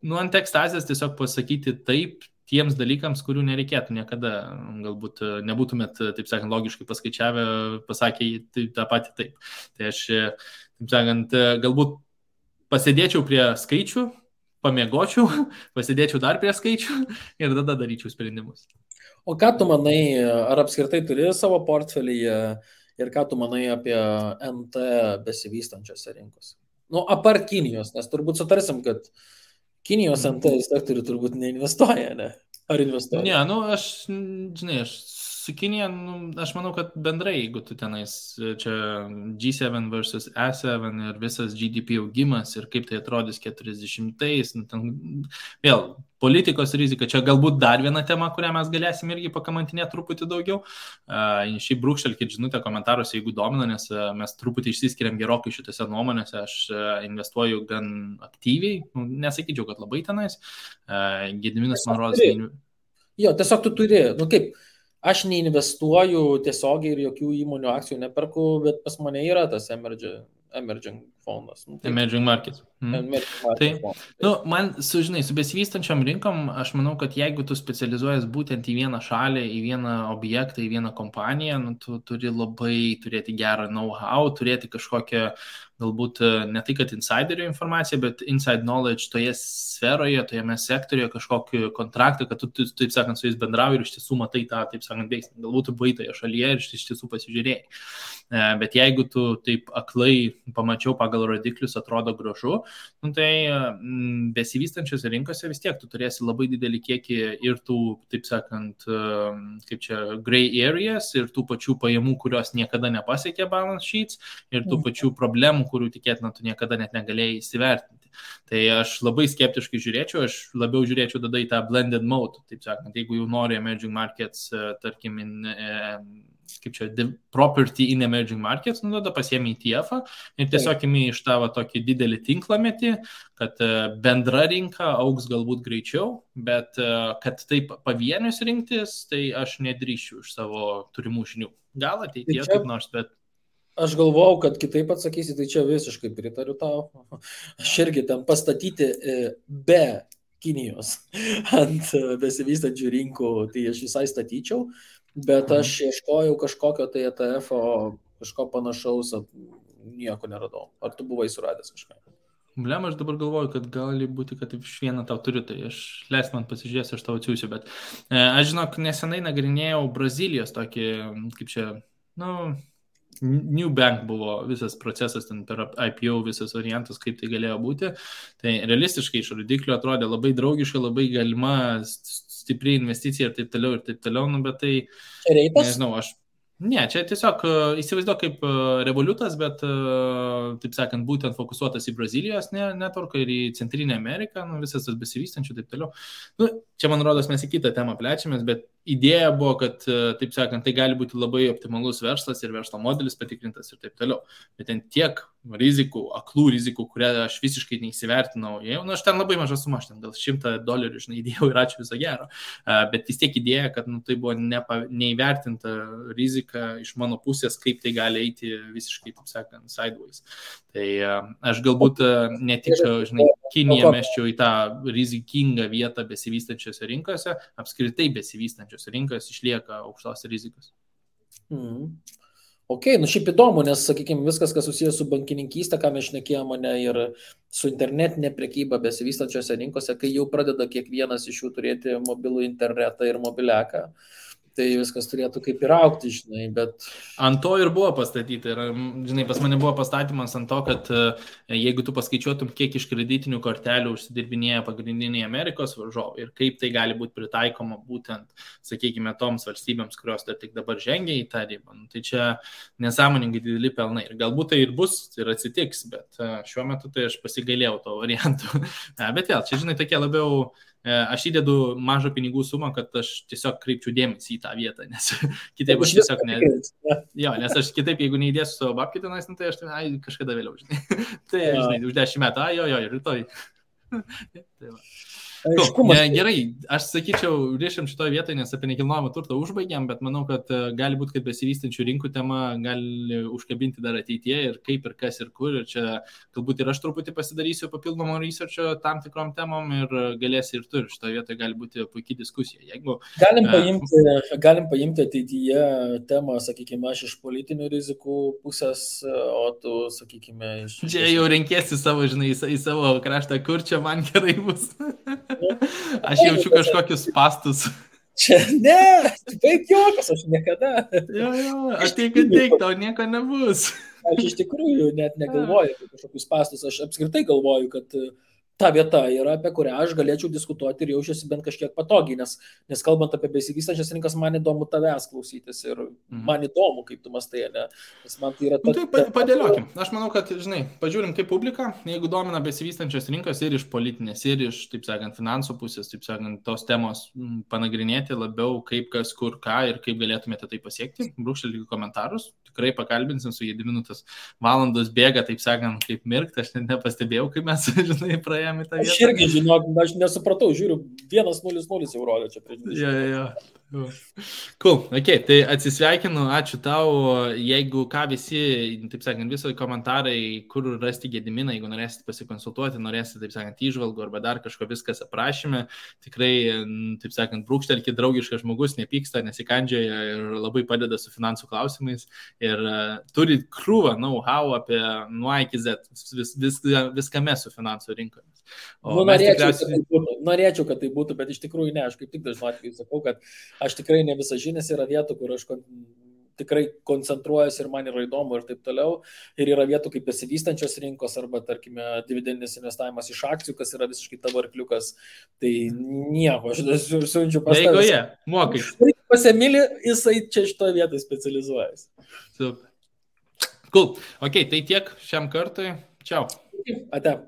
ant ekstazės tiesiog pasakyti taip tiems dalykams, kurių nereikėtų niekada. Galbūt nebūtumėt, taip sakant, logiškai paskaičiavę, pasakė tą patį taip. Tai aš, taip sakant, galbūt pasėdėčiau prie skaičių, pamiegočiau, pasėdėčiau dar prie skaičių ir tada daryčiau sprendimus. O ką tu manai, ar apskritai turi savo portfelyje ir ką tu manai apie NT besivystančiose rinkose? Apart Kinijos, nes turbūt sutarsim, kad Kinijos NT sektorių turbūt neinvestuoja, ne? Ar investuoja? Ne, aš su Kinija, aš manau, kad bendrai, jeigu tu tenais čia G7 versus E7 ir visas GDP augimas ir kaip tai atrodys 40-ais, vėl politikos rizika, čia galbūt dar viena tema, kurią mes galėsim irgi pakamantinėti truputį daugiau. Šiaip brūkštelkit žinutę komentaruose, jeigu domina, nes mes truputį išsiskiriam gerokai šitose nuomonėse, aš investuoju gan aktyviai, nesakyčiau, kad labai tenais. Gediminas man rodos. Jo, tiesiog tu turi, kaip, aš neinvestuoju tiesiogiai ir jokių įmonių akcijų neperku, bet pas mane yra tas emerging fondas. Emerging markets. Man, su besivystančiom rinkom, aš manau, kad jeigu tu specializuojas būtent į vieną šalį, į vieną objektą, į vieną kompaniją, tu turi labai turėti gerą know-how, turėti kažkokią, galbūt ne tai, kad insiderio informacija, bet inside knowledge toje sferoje, tojame sektorijoje kažkokį kontraktą, kad tu, taip sakant, su jais bendrauji ir iš tiesų matai tą, taip sakant, veiksmą. Galbūt tu buvai toje šalyje ir iš tiesų pasižiūrėjai. Bet jeigu tu taip aklai pamačiau pagal rodiklius, atrodo gražu, tai besivystančiose rinkose vis tiek tu turėsi labai didelį kiekį ir tų, taip sakant, kaip čia, gray areas ir tų pačių pajamų, kurios niekada nepasiekė balance sheets ir tų pačių problemų, kurių tikėtina tu niekada net negalėjai įsivertinti. Tai aš labai skeptiškai žiūrėčiau, aš labiau žiūrėčiau tada į tą blended mode, taip sakant, jeigu jau nori emerging markets, tarkim, kaip čia, property in emerging markets, tada pasiemi ETF-ą ir tiesiog imi iš tavo tokį didelį tinklametį, kad bendra rinka augs galbūt greičiau, bet kad taip pavienius rinktis, tai aš nedrįščiau iš savo turimų žinių. Gal ateityje kaip nors, bet aš galvojau, kad kitaip atsakysi, tai čia visiškai pritariu tau. Aš irgi ten pastatyti be Kinijos ant besivystančių rinkų, tai aš visai statyčiau, bet aš ieškojau kažkokio tai ETF-o, kažko panašaus, nieko neradau. Ar tu buvai suradęs kažką? Blem, aš dabar galvoju, kad gali būti, kad iš vieną tau turiu, tai aš leis man pasižiūrėsiu, aš tau atsiųsiu, bet aš žinok, nesenai nagrinėjau Brazilijos tokį, kaip čia, New Bank buvo visas procesas ten per IPO, visas variantas, kaip tai galėjo būti. Tai realistiškai iš rodiklių atrodė labai draugiška, labai galima stipri investicija ir taip toliau, bet tai, nežinau, čia tiesiog įsivaizduoju kaip Revolutas, bet, taip sakant, būtent fokusuotas į Brazilijos networką ir į Centrinę Ameriką, visas tas besivystančių, taip toliau. Čia, man rodos, mes į kitą temą plečiamės, bet idėja buvo, kad, taip sakant, tai gali būti labai optimalus verslas ir verslo modelis patikrintas ir taip toliau. Bet ten tiek rizikų, aklų rizikų, kurią aš visiškai neįsivertinau. Aš ten labai mažą sumą, aš ten gal $100, įdėjau ir ačiū viso gero. Bet vis tiek idėja, kad tai buvo neįvertinta rizika iš mano pusės, kaip tai gali eiti visiškai, taip sakant, sideways. Tai aš galbūt ne tik, Kiniją meščiau į tą rizikingą vietą besivystančiose rinkose, apskritai besivystančiose rinkose išlieka aukštos rizikos. Ok, šiaip įdomu, nes, sakykime, viskas, kas susijęs su bankininkystė, ką mes šnekėjome, ir su internetinė prekyba besivystančiose rinkose, kai jau pradeda kiekvienas iš jų turėti mobilų internetą ir mobiliaką, tai viskas turėtų kaip ir aukti, žinai, bet... Ant to ir buvo pastatyti. Ir, žinai, pas mane buvo pastatymas ant to, kad jeigu tu paskaičiuotum, kiek iš kreditinių kortelių užsidirbinėja pagrindiniai Amerikos varžovai ir kaip tai gali būti pritaikoma būtent, sakykime, toms valstybėms, kurios dar tik dabar žengia į tą ribą, tai čia nesąmoningai dideli pelnai. Ir galbūt tai ir bus, ir atsitiks, bet šiuo metu tai aš pasigailėjau to variantų. Bet vėl, čia, žinai, tokie labiau... Aš įdedu mažą pinigų sumą, kad aš tiesiog kreipčiau dėmesį į tą vietą, nes kitaip aš tiesiog Jo, nes aš kitaip, jeigu neįdėsiu savo babkį tenais, tai aš kažkada vėliau, žinai. Tai, žinai, už 10 metų, jo, rytoj. Tai va. Gerai, aš sakyčiau, rišim šitoje vietoje, nes apie nekilnojamą turtą užbaigiam, bet manau, kad gali būti, kad besivystančių rinkų tema gali užkabinti dar ateityje ir kaip ir kas ir kur. Ir čia galbūt ir aš truputį pasidarysiu papildomo researcho tam tikrom temom ir galėsi ir tu. Ir šitoje vietoje gali būti puikiai diskusija. Jeigu, galim paimti ateityje temą, sakykime, aš iš politinių rizikų pusės, o tu, sakykime, iš... Čia jau renkėsi savo, žinai, į savo kraštą, kur čia man gerai bus. Aš jaučiu kažkokius pastus. Čia, ne, baig juokas, aš niekada. Jo, ateik, tau nieko nebus. Aš iš tikrųjų net negalvoju apie kažkokius pastus. Aš apskritai galvoju, kad ta vieta yra, apie kurią aš galėčiau diskutuoti ir jaučiuosi bent kažkiek patogiai, nes kalbant apie besivystančias rinkas, man įdomu tavęs klausytis ir man įdomu, kaip tu mastai, ne? Nes man tai yra... Tai padėliokim. Aš manau, kad, žinai, pažiūrim kaip publika, jeigu domina besivystančios rinkos ir iš politinės, ir iš, taip sakant, finansų pusės, taip sakant, tos temos panagrinėti labiau, kaip kas, kur, ką ir kaip galėtumėte tai pasiekti, brūkštelkite komentarus, tikrai pakalbinsim su Gediminu, tas valandos bėga, taip sakant, kaip mirkt, aš net nepastebėjau, kaip mes, žinai, praėjome. Aš irgi, žinok, aš nesupratau, žiūriu, 1-0-0 jau rodė čia prieš 20. Jo. Cool, ok, tai atsisveikinu, ačiū tau, jeigu ką visi, taip sakant, viso komentarai, kur rasti Gediminą, jeigu norėsit pasikonsultuoti, norėsit, taip sakant, įžvalgų arba dar kažko viskas aprašyme, tikrai, taip sakant, brūkštelkit, draugiškas žmogus, nepyksta, nesikandžioja ir labai padeda su finansų klausimais ir turi krūvą know-how apie nuo A iki Z, viskame su finansų rinkomis. Norėčiau, kad tai būtų, bet iš tikrųjų ne, aš kaip tik dažnu atveju sakau, kad aš tikrai ne visažinis, yra vietų, kur aš tikrai koncentruojuosi ir man yra įdomu ir taip toliau. Ir yra vietų kaip besivystančios rinkos arba, tarkime, dividendinis investavimas iš akcijų, kas yra visiškai tavo arkliukas. Tai nieko, aš siunčiu pas tavęs. Jeigu mokai. Pas Emilį, jisai čia šitoje vietoje specializuojasi. Super. Cool. Ok, tai tiek šiam kartui. Čiau. Ate.